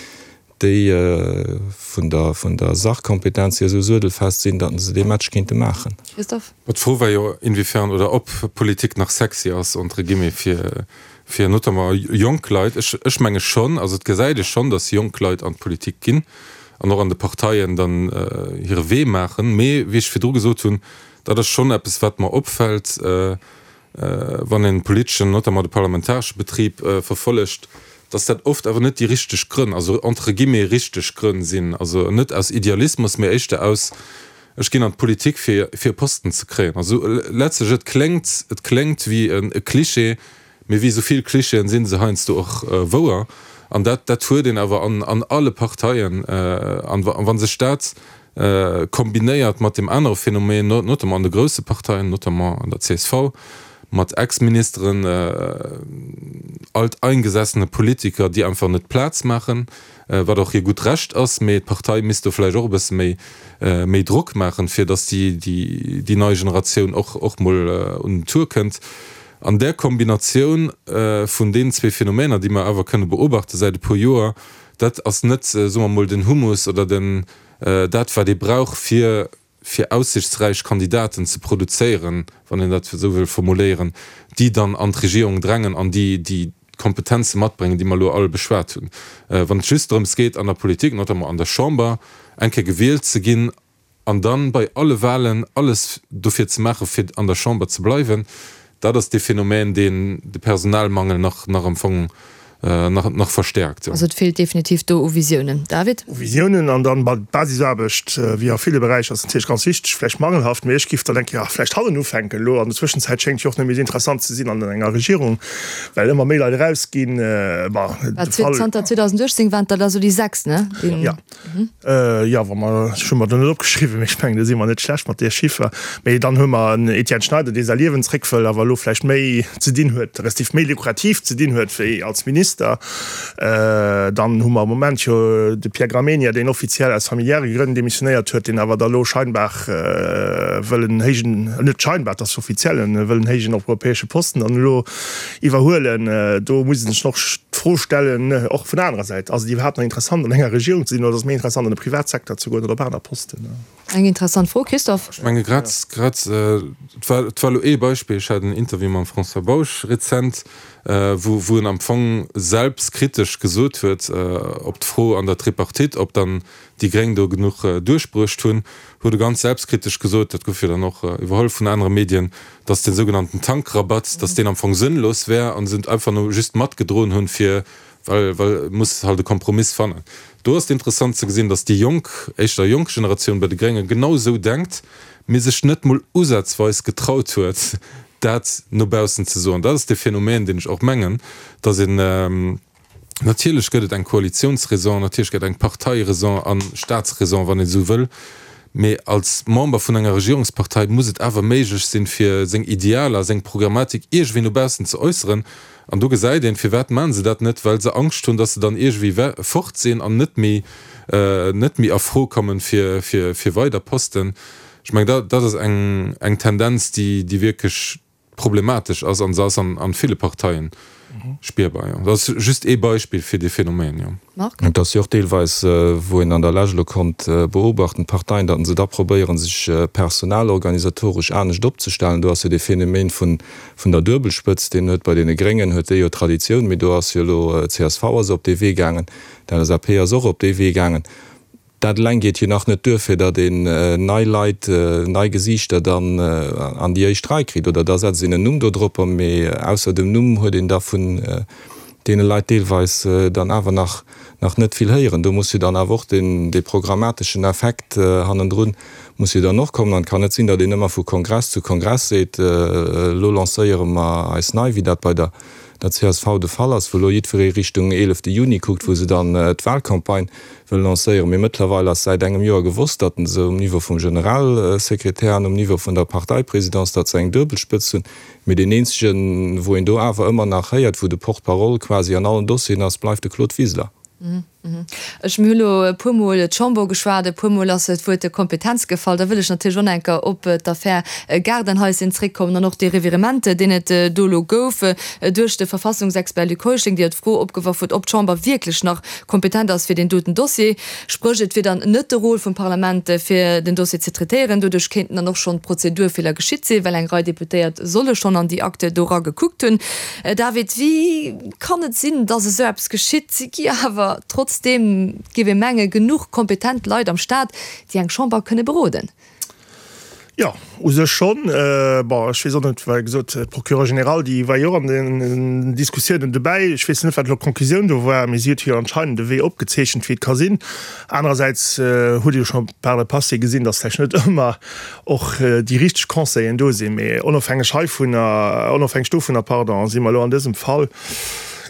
déi vun der, vun der Sachkompetenz hier esou suedelfest sinn, datt se dee Match kéinte maachen. Christophe? D'Fro war jo, inwiefern oder ob Politik nach sexy ass, entre guillemets, fir, fir notamment jonk Leit. Ech, ech menge schonn, also et gesäit ee schonn, datt jonk Leit an d'Politik ginn an och an de Parteien dann hire Wee maachen. Mee wéi ech virdru gesot hunn, dat ass schonn eppes, wat mer opfält, wann een politeschen, notamment de parlamentaresche Betrib verfollegt, datt dat oft awer net déi richteg Grënn, also entre guillemets richteg Grënn sinn, also net aus Idealismus, mee éischter aus, ech ginn an d'Politik fir fir e Posten ze kréien. Also letztlech, et kléngt, et kléngt wéi e Klischee, mee wéi esou vill Klischeeën si se heiansdo och wouer. An dat, dat huet een awer an an alle Parteien. An wa sech dat kombinéiert mat deem anere Phänomen, notamment an de grousse Parteien, notamment an der csv, mat Ex-Ministeren, alteingesessene Politiker, déi einfach net Plaz maachen, wat och hir gutt Recht ass, mee d'Partei misst do vläicht och e bësse méi méi Drock maachen, fir datt déi déi nei Generatioun och och mol un den Tour kënnt. An där Kombinatioun vun deenen zwee Phänomener, déi mer awer kënne beobachte säit e puer Joer, dat ass net, soe mer mol, den Humus oder den dat wat ee brauch fir fir aussichtsräich Kandidaten ze produzéieren, wann een dat esou wëll formuléieren, déi dann an d'Regierung drängen an déi déi d'Kompetenze matbréngen, déi mer elo all beschwat hunn. Wann et just drëms geet, an der Politik, notamment an der Chamber, eng Kéier gewielt ze ginn an dann bei alle Wahlen alles dofir ze maachen, fir an der Chamber ze bleiwen, dat ass dee Phänomen, deen de Personalmangel nach nach am Fong nach nach verstärkt. Also et feelt definitiv do u Visiounen. David? U Visiounen an dann d'Basisaarbecht, wéi a ville Beräicher, ass natierlech ganz wichteg, vläicht mangelhaft, mee ech giff dann denken, jo, vläicht hannen ufänken elo. An der Zwëschenzäit schéngt jo och net méi esou interessant ze sinn an enger Regierung, well ëmmer méi Leit erausginn. Bon, de Fall. Zanter 2018 waren et der da sou déi 6, ne? Jo. Jo, wa mer, ech hu mer do net opgeschriwwen, mee ech mengen, do si mer net schlecht mat där Chiffer. Mee dann hu mer en Etienne Schneider, dee säi Liewen zréck wëll, awer elo vläicht méi ze dinn huet, respektiv méi lukrativ ze dinn huet wéi als Minister. Dann hu mer am Moment jo de Pierre Gramegna, deen offiziell aus familiäre Grënn demissionéiert huet, deen awer da elo scheinbar wëll en héijen, net scheinbar, et ass offiziell, en wëll en héijen europäesche Posten dann elo iwwerhuelen. Do muss ee sech och d'Fro stellen, och vun der anerer Säit, Ass et iwwerhaapt nach interessant an enger Regierung ze sinn oder ass et méi interessant an de Privatsecteur ze goen oder op aner Posten? Eng interessant Fro, Christophe. Ech menge grad, grad, et war, et war elo ee Beispill, ech hat en Interview mam François Bausch rezent, wou, wou en am Fong selbstkritesch gesot huet, op d'Fro an der Tripartite, ob dann déi Gréng do genuch duerchbruecht hunn, huet e ganz selbstkritesch gesot, dat gouf jo dann och iwwerholl vun anere Medien, datt dee sougenannten Tankrabatt, datt deen am Fong sënnlos wär a se einfach no just matgedroen hunn, fir, well, well et muss halt e Kompromiss fannen. Do ass et interessant ze gesinn, datt déi jonk, éischter jonk Generatioun bei de Grénge genau esou denkt, mee sech net mol usazweis getraut huet, dat no baussen ze soen. Dat ass dee Phänomen, deen ech och mengen, datt een, Natierlech gëtt et eng Koalitionsraison, natierlech gëtt et eng Parteiräson a Staatsräson, wann een esou wëll, mee als Member vun enger Regierungspartei muss et awer méiglech sinn, fir seng Idealer, seng Programmatik iergendwéi no baussen ze äusseren. An do gesäit een, firwat maachen se dat net? Well se Angscht hunn, datt se dann iergendwéi fort sinn an net méi, net méi a Fro kommen fir, fir, fir weider Posten. Ech mengen, dat, dat ass eng, eng Tendenz, déi, déi wierklech problematesch ass, an se ass an ville Parteien spierbar, jo. Dat ass just ee Beispill fir dee Phänomen, jo. Marc? Et ass jo och deelweis, wou een an der Lescht elo konnt beobachten, d'Parteien, datt se da probéieren, sech personalorganisatoresch anescht opzestellen. Do ass jo dee Phänomen vun der Duebelspëtzt, deen huet bei deene Gréngen huet déi jo Traditioun, mee do ass jo elo csv ass op dee Wee gaangen, d'LSAP ass och op dee Wee gaangen. Dat eleng geet jo nach net duer, fir datt een nei Leit, nei Gesiichter dann an déi éischt Rei kritt. Oder da setzt een en Numm do dropper, mee ausser dem Numm huet een da vun deene Leit deelweis dann awer nach nach net vill héieren. Do muss jo dann awer och deen dee programmateschen Effekt hannendrun muss jo dann och kommen. An et kann net sinn, datt een ëmmer vu Kongress zu Kongress seet, elo lancéiere mer eis nei, wéi dat bei der der csv de Fall ass, wou elo jiddweree Richtung eelefte Juni kuckt, wou se dann d'Wahlcampagne wëll lancéieren. Mee mëttlerweil ass säit engem Joer gewosst, datt se um Niveau vum Generalsekretär an um Niveau vun der Parteiprésidence, datt se eng Duebelspëtz hunn. Mee deen eenzegen, wou een do awer ëmmer nach héiert, wou de Porte-parole quasi an allen Dossieren ass, bleift de Claude Wiseler. Ech, mir hu lo e puermol d'Chamber ugeschwat, e puermol ass d'Wuert Kompetenz gefall. Da wëll ech natierlech och nach eng Kéier op d'Affär Gaardenhaischen zréckkommen an och dee Revirement, deen et do elo gouf duerch de Verfassungsexpert Luc Heuschling, dee jo d'Fro opgeworf huet, ob d'Chamber wierklech nach kompetent ass fir deen doten Dossier. Spréch, et wier dann net de Rôle vum Parlament, fir den Dossier ze traitéieren. Doduerch kéinten dann och schonn Prozedurfeeler geschitt sinn, well eng Rei Deputéiert solle schonn an déi Akte do era gekuckt hunn. David, wéi kann et sinn, dass esou eppes geschitt? Si gi awer trotzdeem, géif ee mengen, genuch kompetent Leit am Staat, déi eng Chamber kënne beroden. Jo, u sech schonn. Bon, ech weess och net, well gesot, d'Procureure générale, déi war jo och an den Diskussiounen dobäi. Ech weess net, wat elo d'Conclusioun do war, mee si huet jo anscheinend e Wee opgezeechent, wéi et ka sinn. Anerersäits huet ee jo scho par le passé gesinn, dass vläicht net ëmmer och déi richteg Conseillen do sinn. Mee onofhängeg heivunner, onofhängeg dovunner, pardon, si mer elo an dësem Fall,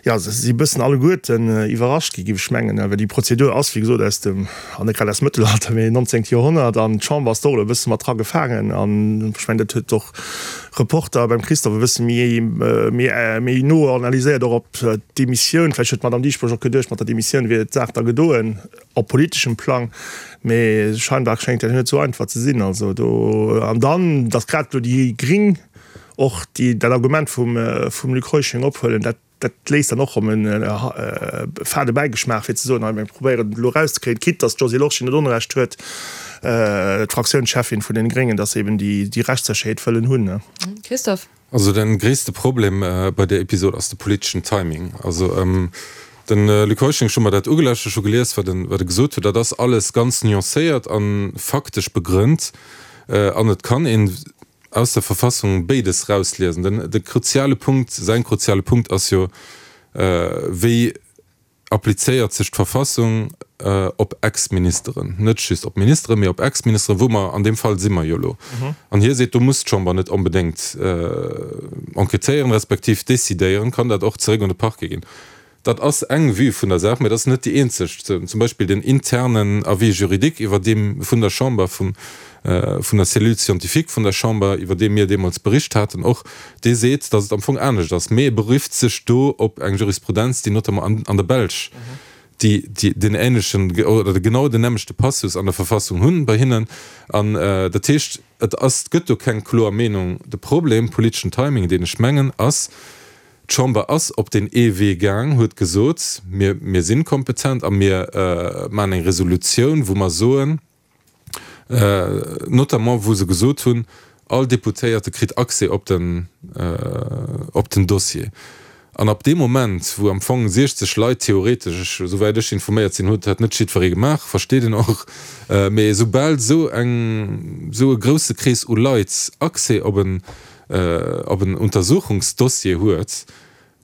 jo, se si e bëssen alleguerten iwwerrascht gi, géif ech mengen, well déi Prozedur ass, wéi gesot, aus dem, an net grad aus dem Mëttelalter, mee 19. Joerhonnert, an d'Chamber ass do och elo e bësse mat dra gefaangen. An ech mengen, dat huet och Reporter beim Christophe e bësse méi, méi, méi no analyséiert, och op d'Demissioun. Vläicht huet d'Madame Dieschbourg och geduecht, mat der Demissioun wier d'Saach da gedoen op politeschem Plang, mee scheinbar schéngt dat net esou einfach ze sinn. Also do, an dann, datt grad elo déi Gring och déi, dat Argument vum, vum Luc Heuschling ophuelen, dat, Dat léisst dann och erëm e fade Bäigeschmaach, fir ze soen, hei mir probéieren et elo erauszekréien, quitte datt d'Josée Lorsché net Onrecht huet, d'Fraktiounscheffin vun den Gréngen, datt se eben déi Rechtssécherheet wëllen hunn. Christophe. Also de gréisste Problem bei där Episod ass de politeschen Timing. Also de Luc Heuschling, ech hu mer dat ugelauschtert, ech hu gelies, wat e gesot huet, dat ass alles ganz nuancéiert a faktesch begrënnt an et kann een, aus der Verfassung béides rausliesen. Den, de kruziale Punkt, säin kruziale Punkt ass jo, wéi applizéiert sech d'Verfassung op Ex-Ministeren, net just op Ministeren, mee op Ex-Ministeren, wou mer, an deem Fall si mer jo elo. An hie seet, do muss d'Chamber net onbedéngt enquêtéieren, respektiv décidéieren, kann dat och zeréck un de Parquet ginn. Dat ass eng Vue vun der Saach, mä dat ass net déi eenzeg. Zum Beispill den internen Avis juridique, iwwer deem vun der Chamber, vum, vun der Cellule scientifique vun der Chamber, iwwer dee mir deemools bericht haten och, dee seet, datt et am Fong anescht ass. Mee e berifft sech do op eng Jurisprudenz, déi notamment an, an der Belsch, déi, déi deen ähnlechen oder genau den nämmlechte Passus an der Verfassung hunn bei hinnen. An dat heescht, et ass, et gëtt do keng kloer Meenung. De Problem, politeschen Timing, deen ech mengen, ass, D'Chamber ass op deen ee Wee gaang, huet gesot, mir, mir si kompetent a mir maachen eng Resolutioun, wou mer soen, notamment wou se gesot hunn, all Deputéierte kritt Accès op den, op den Dossier. An ab deem Moment, wou am Fong 60 Leit theoretesch, ech, esouwäit ech informéiert sinn, huet dat net jiddweree gemaach, versteet een och, mee esoubal esou eng, esou e grousse Krees u Leit Accès op en, op en Untersuchungsdossier huet,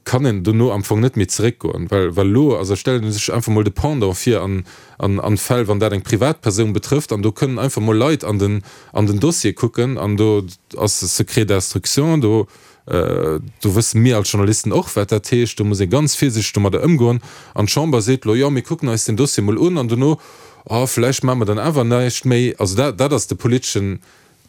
kann en dono am Fong net méi zeréckgoen, well well elo, also stellt ee sech einfach mol de Pendant vir an an Fäll, wann dat eng Privatpersoun betrëfft, an do kënnen einfach mol Leit an den an den Dossier kucken an do ass Secret d'instruction, do do wësse mir als Journalisten och, wat dat heescht, do muss ee ganz virsiichteg domadder ëmgoen an d'Chamber seet elo, jo mir kucken eis den Dossier mol un an dono, oh vläicht maache mer dann awer näischt méi. Also dat dat ass de politeschen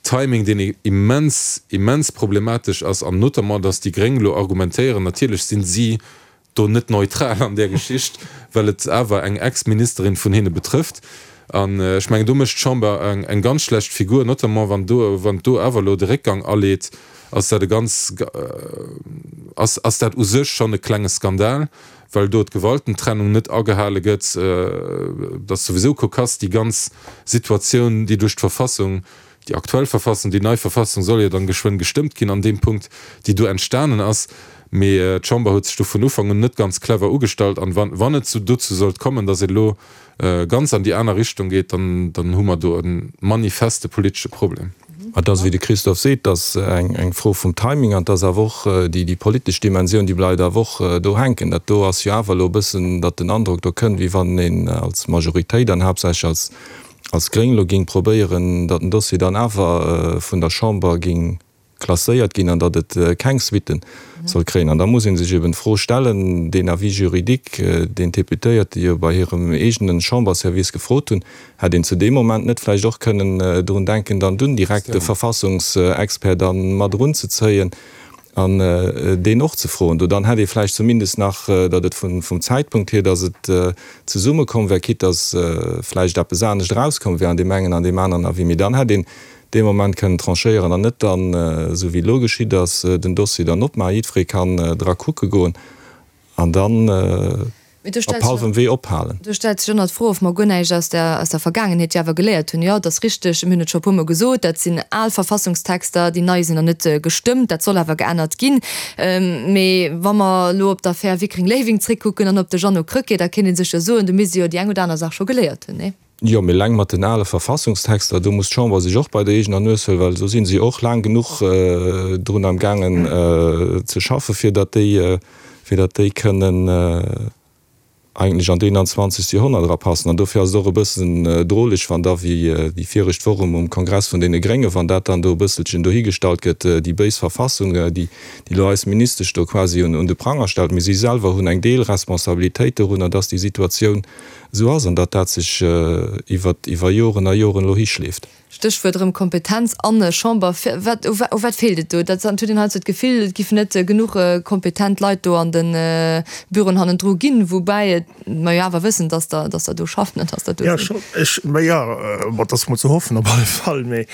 Timing, deen immens, immens problematesch ass, an notamment, dass déi Gréng elo argumentéieren, natierlech sinn si do net neutral an där Geschicht, well et awer eng Ex-Ministerin vun hinne betrëfft. An ech mengen, do mécht d'Chamber eng ganz schlecht Figur, notamment wann do, wann do awer elo de Réckgang aleet, ass dat e ganz, ass, ass dat u sech schonn e klenge Skandal, well do d'Gewaltentrennung net agehale gëtt, et ass souwisou cocasse, déi ganz Situatioun, déi duerch d'Verfassung, déi aktuell Verfassung, déi nei Verfassung soll jo dann geschwënn gestëmmt ginn an deem Punkt, déi do entstanen ass. Mee d'Chamber huet sech do vun Ufank un net ganz clever ugestallt. An wann, wann et dozou sollt kommen, datt et elo ganz an déi aner Richtung geet, dann, dann hu mer do e manifeste politesche Problem. Et ass, wéi de Christophe seet, et ass eng Fro vum Timing an et ass awer och déi politesch Dimensioun, déi bleift awer och do hänken. Dat do ass jo awer elo e bëssen, datt den Androck do kënnt, wéi wann een als Majoritéit an haaptsächlech als Gréng elo géing probéieren, datt den Dossier dann awer vun der Chamber géing klasséiert ginn an datt et keng Suitten soll kréien. An da muss ee sech eben d'Fro stellen, deen Avis juridique, deen d'Deputéierte jo bei hirem eegene Chamberservice gefrot hunn, hätt een zu deem Moment net vläicht och kënnen drun denken, dann dunn direkt de Verfassungsexpert da mat erunzezéien an deen och ze froen. Do dann hätt ee vläicht zumindest nach, datt et vum Zäitpunkt hier, datt et zesummekomm wär, quitte datt vläicht eppes anescht erauskomm wär an deem engen an deem aneren Avis, mee dann hätt een dee Moment kënnen tranchéieren an net dann, esou wéi elo geschitt ass, den Dossier dann opmaachen, jiddweree kann dra kucke goen an dann op hallwem Wee ophalen. Do stellt sech ëmmer d'Fro, ob mer guer näischt aus der aus der Vergaangenheet jo awer geléiert hunn. Jo, et ass richteg, mir hunn et scho e puermol gesot, dat sinn al Verfassungstexter, déi nei sinn nach net gestëmmt, dat soll awer geännert ginn. Mee wa mer elo op d'Affär Wickreng-Léiwing zréckkucken an op de Jeannot Krecké, da kéint ee sech jo soen, do misst ee jo déi eng oder aner Saach scho geléiert hunn, nee? Jo, mee eleng mat den ale Verfassungstexter, do muss d'Chamber sech och bei der eegener Nues huelen, well do si se och laang genuch drun am gaangen ze schaffen, fir datt déi, fir datt déi kënnen eigentlech an d'Eenanzwanzegst Joerhonnert erapassen. An dofir ass et och e bëssen droleg, wann da, wéi déi viregt Woch um Kongress vun deene Gréngen, wann dat dann do e bësselchen dohigestallt gëtt, déi béis Verfassung, déi elo eis Ministesch do quasi un de Pranger stellt. Mee si selwer hunn eng Deelresponsabilitéit dorunner, datt déi Situatioun Esou ass, an datt dat sech iwwer iwwer Joren a Joren elo hischleeft. Stéchwuert erëm Kompetenz an Chamber. Wat, u wat feelt et do? Dat huet een heiansdo d'Gefill, et giffen net genuch kompetent Leit do an de Büroen hannendru ginn, woubäi et mer jo awer wëssen, datt der, datt der do schaffen an datt der do sinn. Jo, scho, ech, mä jo, bon, dat ass mol ze hoffen op alle Fall, mee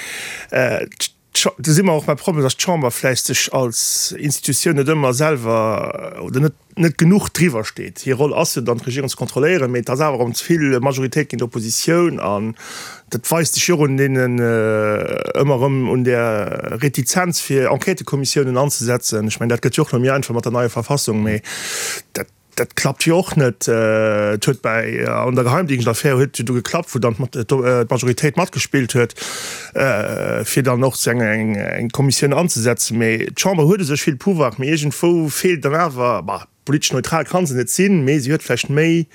Do si mer och beim Problem, dass d'Chamber vläicht sech als Institutioun net ëmmer selwer oder net, net genuch driwwer steet. Hir Roll ass jo dann, d'Regierung ze kontrolléieren, mee et ass awer erëm ze vill Majoritéit géint Oppositioun. An dat weist sech jo och un deenen, ëmmer erëm un där Retizenz, fir Enquêtëkommissiounen anzesetzen. Ech mengen, dat gëtt jo och elo méi einfach mat der neier Verfassung, mee dat, Dat klappt jo och net. Et huet bäi an der Geheimdienstaffär huet jo du geklappt, wou dann d'Majoritéit matgespillt huet, fir dann och eng eng Kommissioun anzesetzen. Mee d'Chamber huet u sech vill Pouvoir, mee iergendwou feelt dann awer, bah, politesch neutral ka se net sinn, mee si huet vläicht méi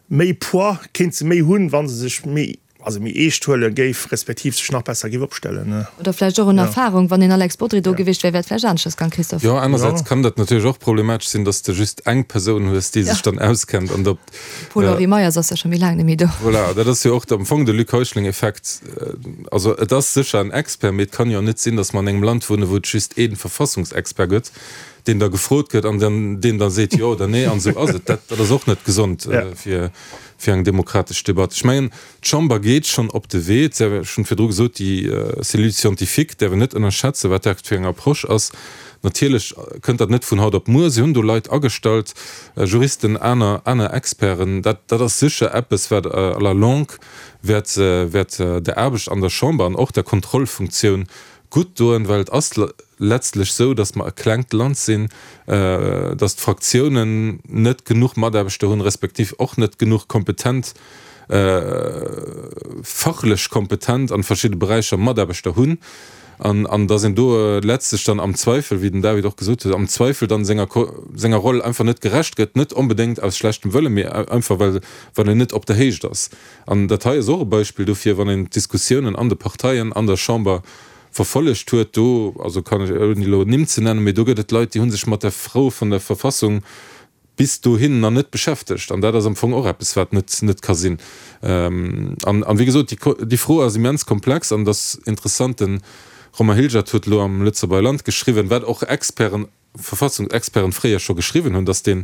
méi Poids, kéint se méi hunn, wa se sech méi also méi eescht huele géif, respektiv sech nach besser géif opstellen. Oder vläicht och un Erfahrung. Wann een Alex Bodry do gewiescht wär, wär et vläicht aneschters gaang, Christophe. Jo, anersäits kann dat natierlech och problematesch sinn, dass de just eng Persoun hues, déi sech dann auskennt an op. Paul-Henri Meyers ass jo scho méi laang net méi do. Voilà, dat ass jo och am Fong de Luc Heuschling-Effekt. Also et ass sécher en Expert, mee et kann jo net sinn, dass mer an engem Land wunnen, wou et just ee Verfassungsexpert gëtt, deen da gefrot gëtt an dann deen da seet jo oder nee an esou ass et. Dat ass och net gesond fir fir eng demokratesch Debatt. Ech mengen, d'Chamber geet schonn op de Wee, et ech hunn virdru gesot, déi Cellule scientifique däerf een net ënnerschätzen, wat dat fir eng Approche ass. Natierlech kënnt dat net vun haut op muer. Si hunn do Leit agestallt, Juristen, aner, aner Experten. Dat, dat ass sécher eppes, wat à la longue wäert, wäert der Aarbecht an der Chamber an och der Kontrollfunktioun gutt doen, well et ass letztlech esou, datt mer e klengt Land sinn, datt d'Fraktiounen net genuch Mataarbechter hunn, respektiv och net genuch kompetent, fachlech kompetent an verschidde Beräicher Mataarbechter hunn, an an datt een do letztlech dann am Zweifel, wéi den David och gesot huet, am Zweifel dann senger senger Roll einfach net gerecht gëtt, net onbedéngt aus schlechtem Wëllen, mee einfach well well een net op der Héicht ass. An dat hei ass och e Beispill dofir, wann een d'Diskussiounen an de Parteien, an der Chamber verfollegt huet, do, also kann ech, ouni elo Nimm ze nennen, mee do gëtt et Leit, déi hu sech mat der Fro vun der Verfassung bis dohin nach net beschäftegt. An dat ass am Fong och eppes, wat net, net ka sinn. An, an wéi gesot, déi, déi Fro ass immens komplex an et ass interessant, de Romain Hilgert huet elo am Lëtzebuerger Land geschriwwen, wat och Experten, Verfassungsexperten fréier scho geschriwwen hunn, dass dee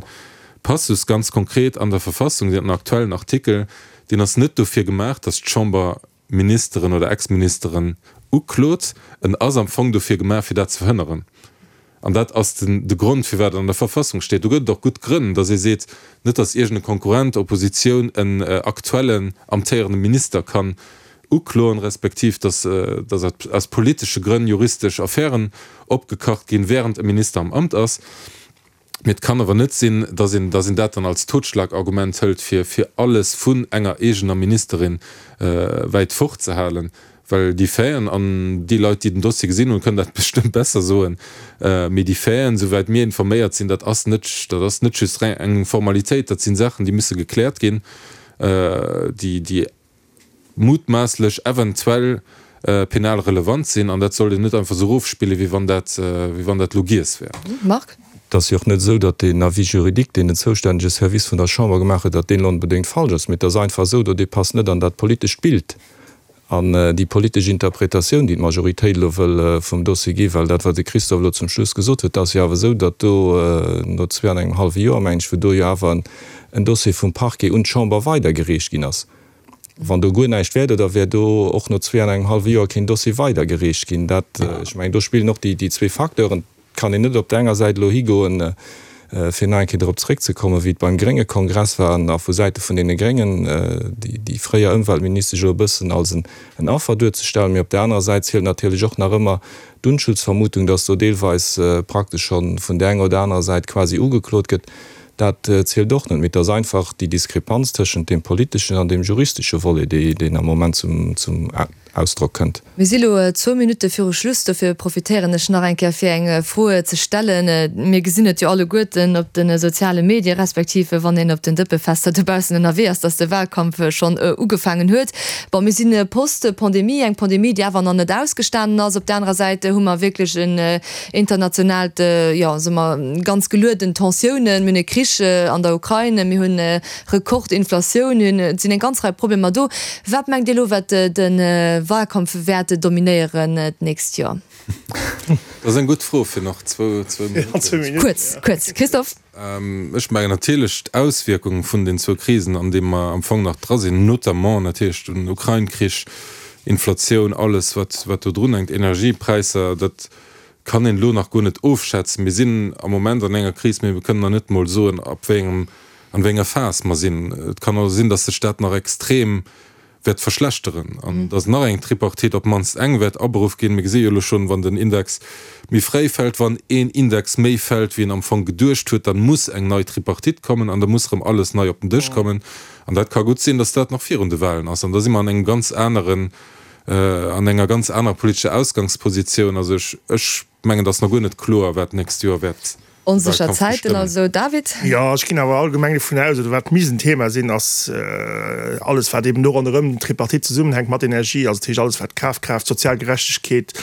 Passus ganz konkret an der Verfassung, den aktuellen Artikel, deen ass net dofir gemaach, dass d'Chamber Ministeren oder Ex-Ministeren uklot, en ass am Fong dofir gemaach, fir dat ze verhënneren. An dat ass den de Grond, firwat et an der Verfassung steet. Do gëtt et och gutt Grënn, dass ee seet, net dass iergend e Konkurrent, Oppositioun en aktuellen amtéierende Minister kann ukloen, respektiv dass dass aus politesche Grënn juristesch Affären opgekacht ginn, während e Minister am Amt ass. Mee et kann awer net sinn, dass een dass een dat dann als Totschlagargument hëlt, fir fir alles vun enger eegener Ministerin wäit fort ze halen. Well déi Faiten, an déi Leit, déi den Dossier gesinn hunn, kënnen dat bestëmmt besser soen, mee déi Faiten, souwäit mir informéiert sinn, dat ass net, dat ass net just eng Formalitéit, dat si Saachen, déi musse gekläert ginn, déi, déi mutmaasslech eventuell penal relevant sinn. An dat sollt een net einfach esou erofspillen, wéi wann dat, wéi wann dat elo giess wär. Marc. Et ass jo och net esou, datt deen Avis juridique, deen den zoustännege Service vun der Chamber gemaach huet, datt deen elo onbedéngt falsch ass, mee et ass einfach esou, do dee passt net an dat politescht Bild. An déi politesch Interpretatioun, déi d'Majoritéit elo wëll vum Dossier ginn, well dat, wat de Christophe elo zum Schluss gesot huet, dat ass jo awer esou, datt do no zwee an engem hallwe Joer, mengen ech, wou do jo awer en Dossier vum Parquet un d'Chamber weidergereecht ginn ass, wann do guer näischt wär, da wär do och no zwee an engem hallwe Joer keen Dossier weidergereecht ginn. Dat, ech mengen, do spillen och déi zwee Facteuren. Et kann een net op der enger Säit elo higoen, fir nach eng Kéier drop zréckzekommen, wéi et beim grénge Kongress war, an a vu Säite vun deene Gréngen déi fréier Ëmweltministesch elo e bëssen als en Affer duerzestellen. Mee op der anerer Säit zielt natierlech och nach ëmmer d'Unschuldsvermutung, dass do deelweis praktesch scho vun där enger oder anerer Säit quasi ugeklot gëtt. Dat zielt och net. Mee et ass einfach déi Diskrepanz tëschent deem politeschen an deem juristesche Volet, deen am Moment zum Ausdrock kënnt. Mir si lo zwou Minutte viru Schluss, dofir profitéieren ech nach eng Kéier fir eng Fro ze stellen. Mir gesinn et jo alleguerten op de soziale Medie respektiv wann een op den Dëppefester dobaussen ënnerwee ass, dass de Wahlkampf schonn ugefaangen huet. Bon, mir si post-Pandemie, eng Pandemie, déi awer nach net ausgestanen ass. Op der anerer Säit hu mer wierklech en internationaalt, jo, soe mer, ganz gelueden Tensiounen. Mir hunn e Krich an der Ukrain, mir hunn Rekordinflatioun hunn, et sinn eng ganz Rei Problemer do. Wat mengt Dir elo, wat de Wahlkampf wäert dominéieren d'nächst Joer? Dat ass eng gutt Fro fir nach zwou Minutten. Kuerz, kuerz, Christophe. Ech mengen natierlech d'Auswierkung vun den zwou Krisen, an deem mer am Fong nach dra sinn, notamment natierlech den Ukrain-Krich, Inflatioun, alles wat wat do drunhänkt, Energiepräisser, dat kann een elo nach guer net ofschätzen. Mir sinn am Moment an enger Kris, mee mir kënnen nach net emol soen, ab wéi engem an wéi enger Phas mer sinn. Et kann also sinn, dass sech dat nach extrem wäert verschlechteren an dass nach eng Tripartite, op d'mannst eng, wäert aberuff ginn. Mir gesi jo elo schonn, wann den Index méi fréi fält, wann een Index méi fält, wéi een am Fong geduecht huet, dann muss eng nei Tripartite kommen an da muss erëm alles nei op den Dësch kommen. An dat ka gutt sinn, dass dat nach virun de Wahlen ass. An da si mer an engem ganz aneren, an enger ganz anerer politescher Ausgangspositioun. Also ech, ech mengen, et ass nach guer net kloer, wat d'nächst Joer wäert Onsécher Zäiten also, David? Jo, ech ginn awer allgemeng dovun aus, oder wat misst en Thema sinn, ass alles, wat eben do ronderëm den Tripartite zesummenhänkt mat Energie, also dat heescht alles, wat Kafkraaft, sozial Gerechtegkeet,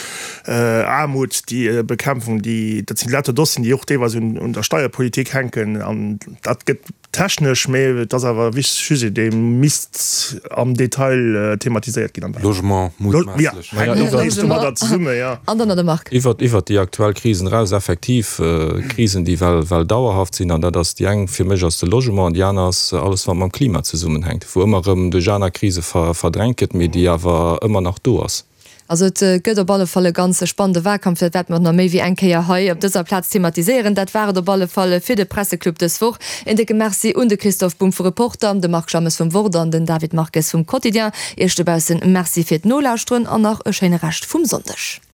Aarmut, déi Bekämpfung, déi, dat sinn lauter Dossieren, déi och deelweis un der Steierpolitik hänken an dat gëtt Technesch, mee et ass awer e wichtege Sujet, dee misst am Detail thematiséiert ginn am Wahlkampf. Logement, mutmaasslech. Jo, hänkt och nees domadder zesumme, jo. An dann nach de Marc. Iwwert, iwwert déi aktuell Krisen eraus, effektiv Krisen, déi well, well dauerhaft sinn. An dat ass déi eng fir mech ass de Logement an déi aner ass alles, wat mam Klima zesummenhänkt, wou ëmmer erëm duerch aner Krise ver, verdrängt gëtt, mee déi awer ëmmer nach do ass. Also et gëtt op alle Fall e ganz spannende Wahlkampf, dat wäerte mer och nach méi wéi eng Kéier hei op dëser Plaz thematiséieren. Dat war et op alle Fall fir de Presseclub dës Woch. Een décke Merci un de Christophe Bumb vu Reporter, de Marc Jammes vum Wort an den David Marques vum Quotidien. Iech dobaussen Merci fir d'Nolauschteren an nach e schéine Rescht vum Sonndeg.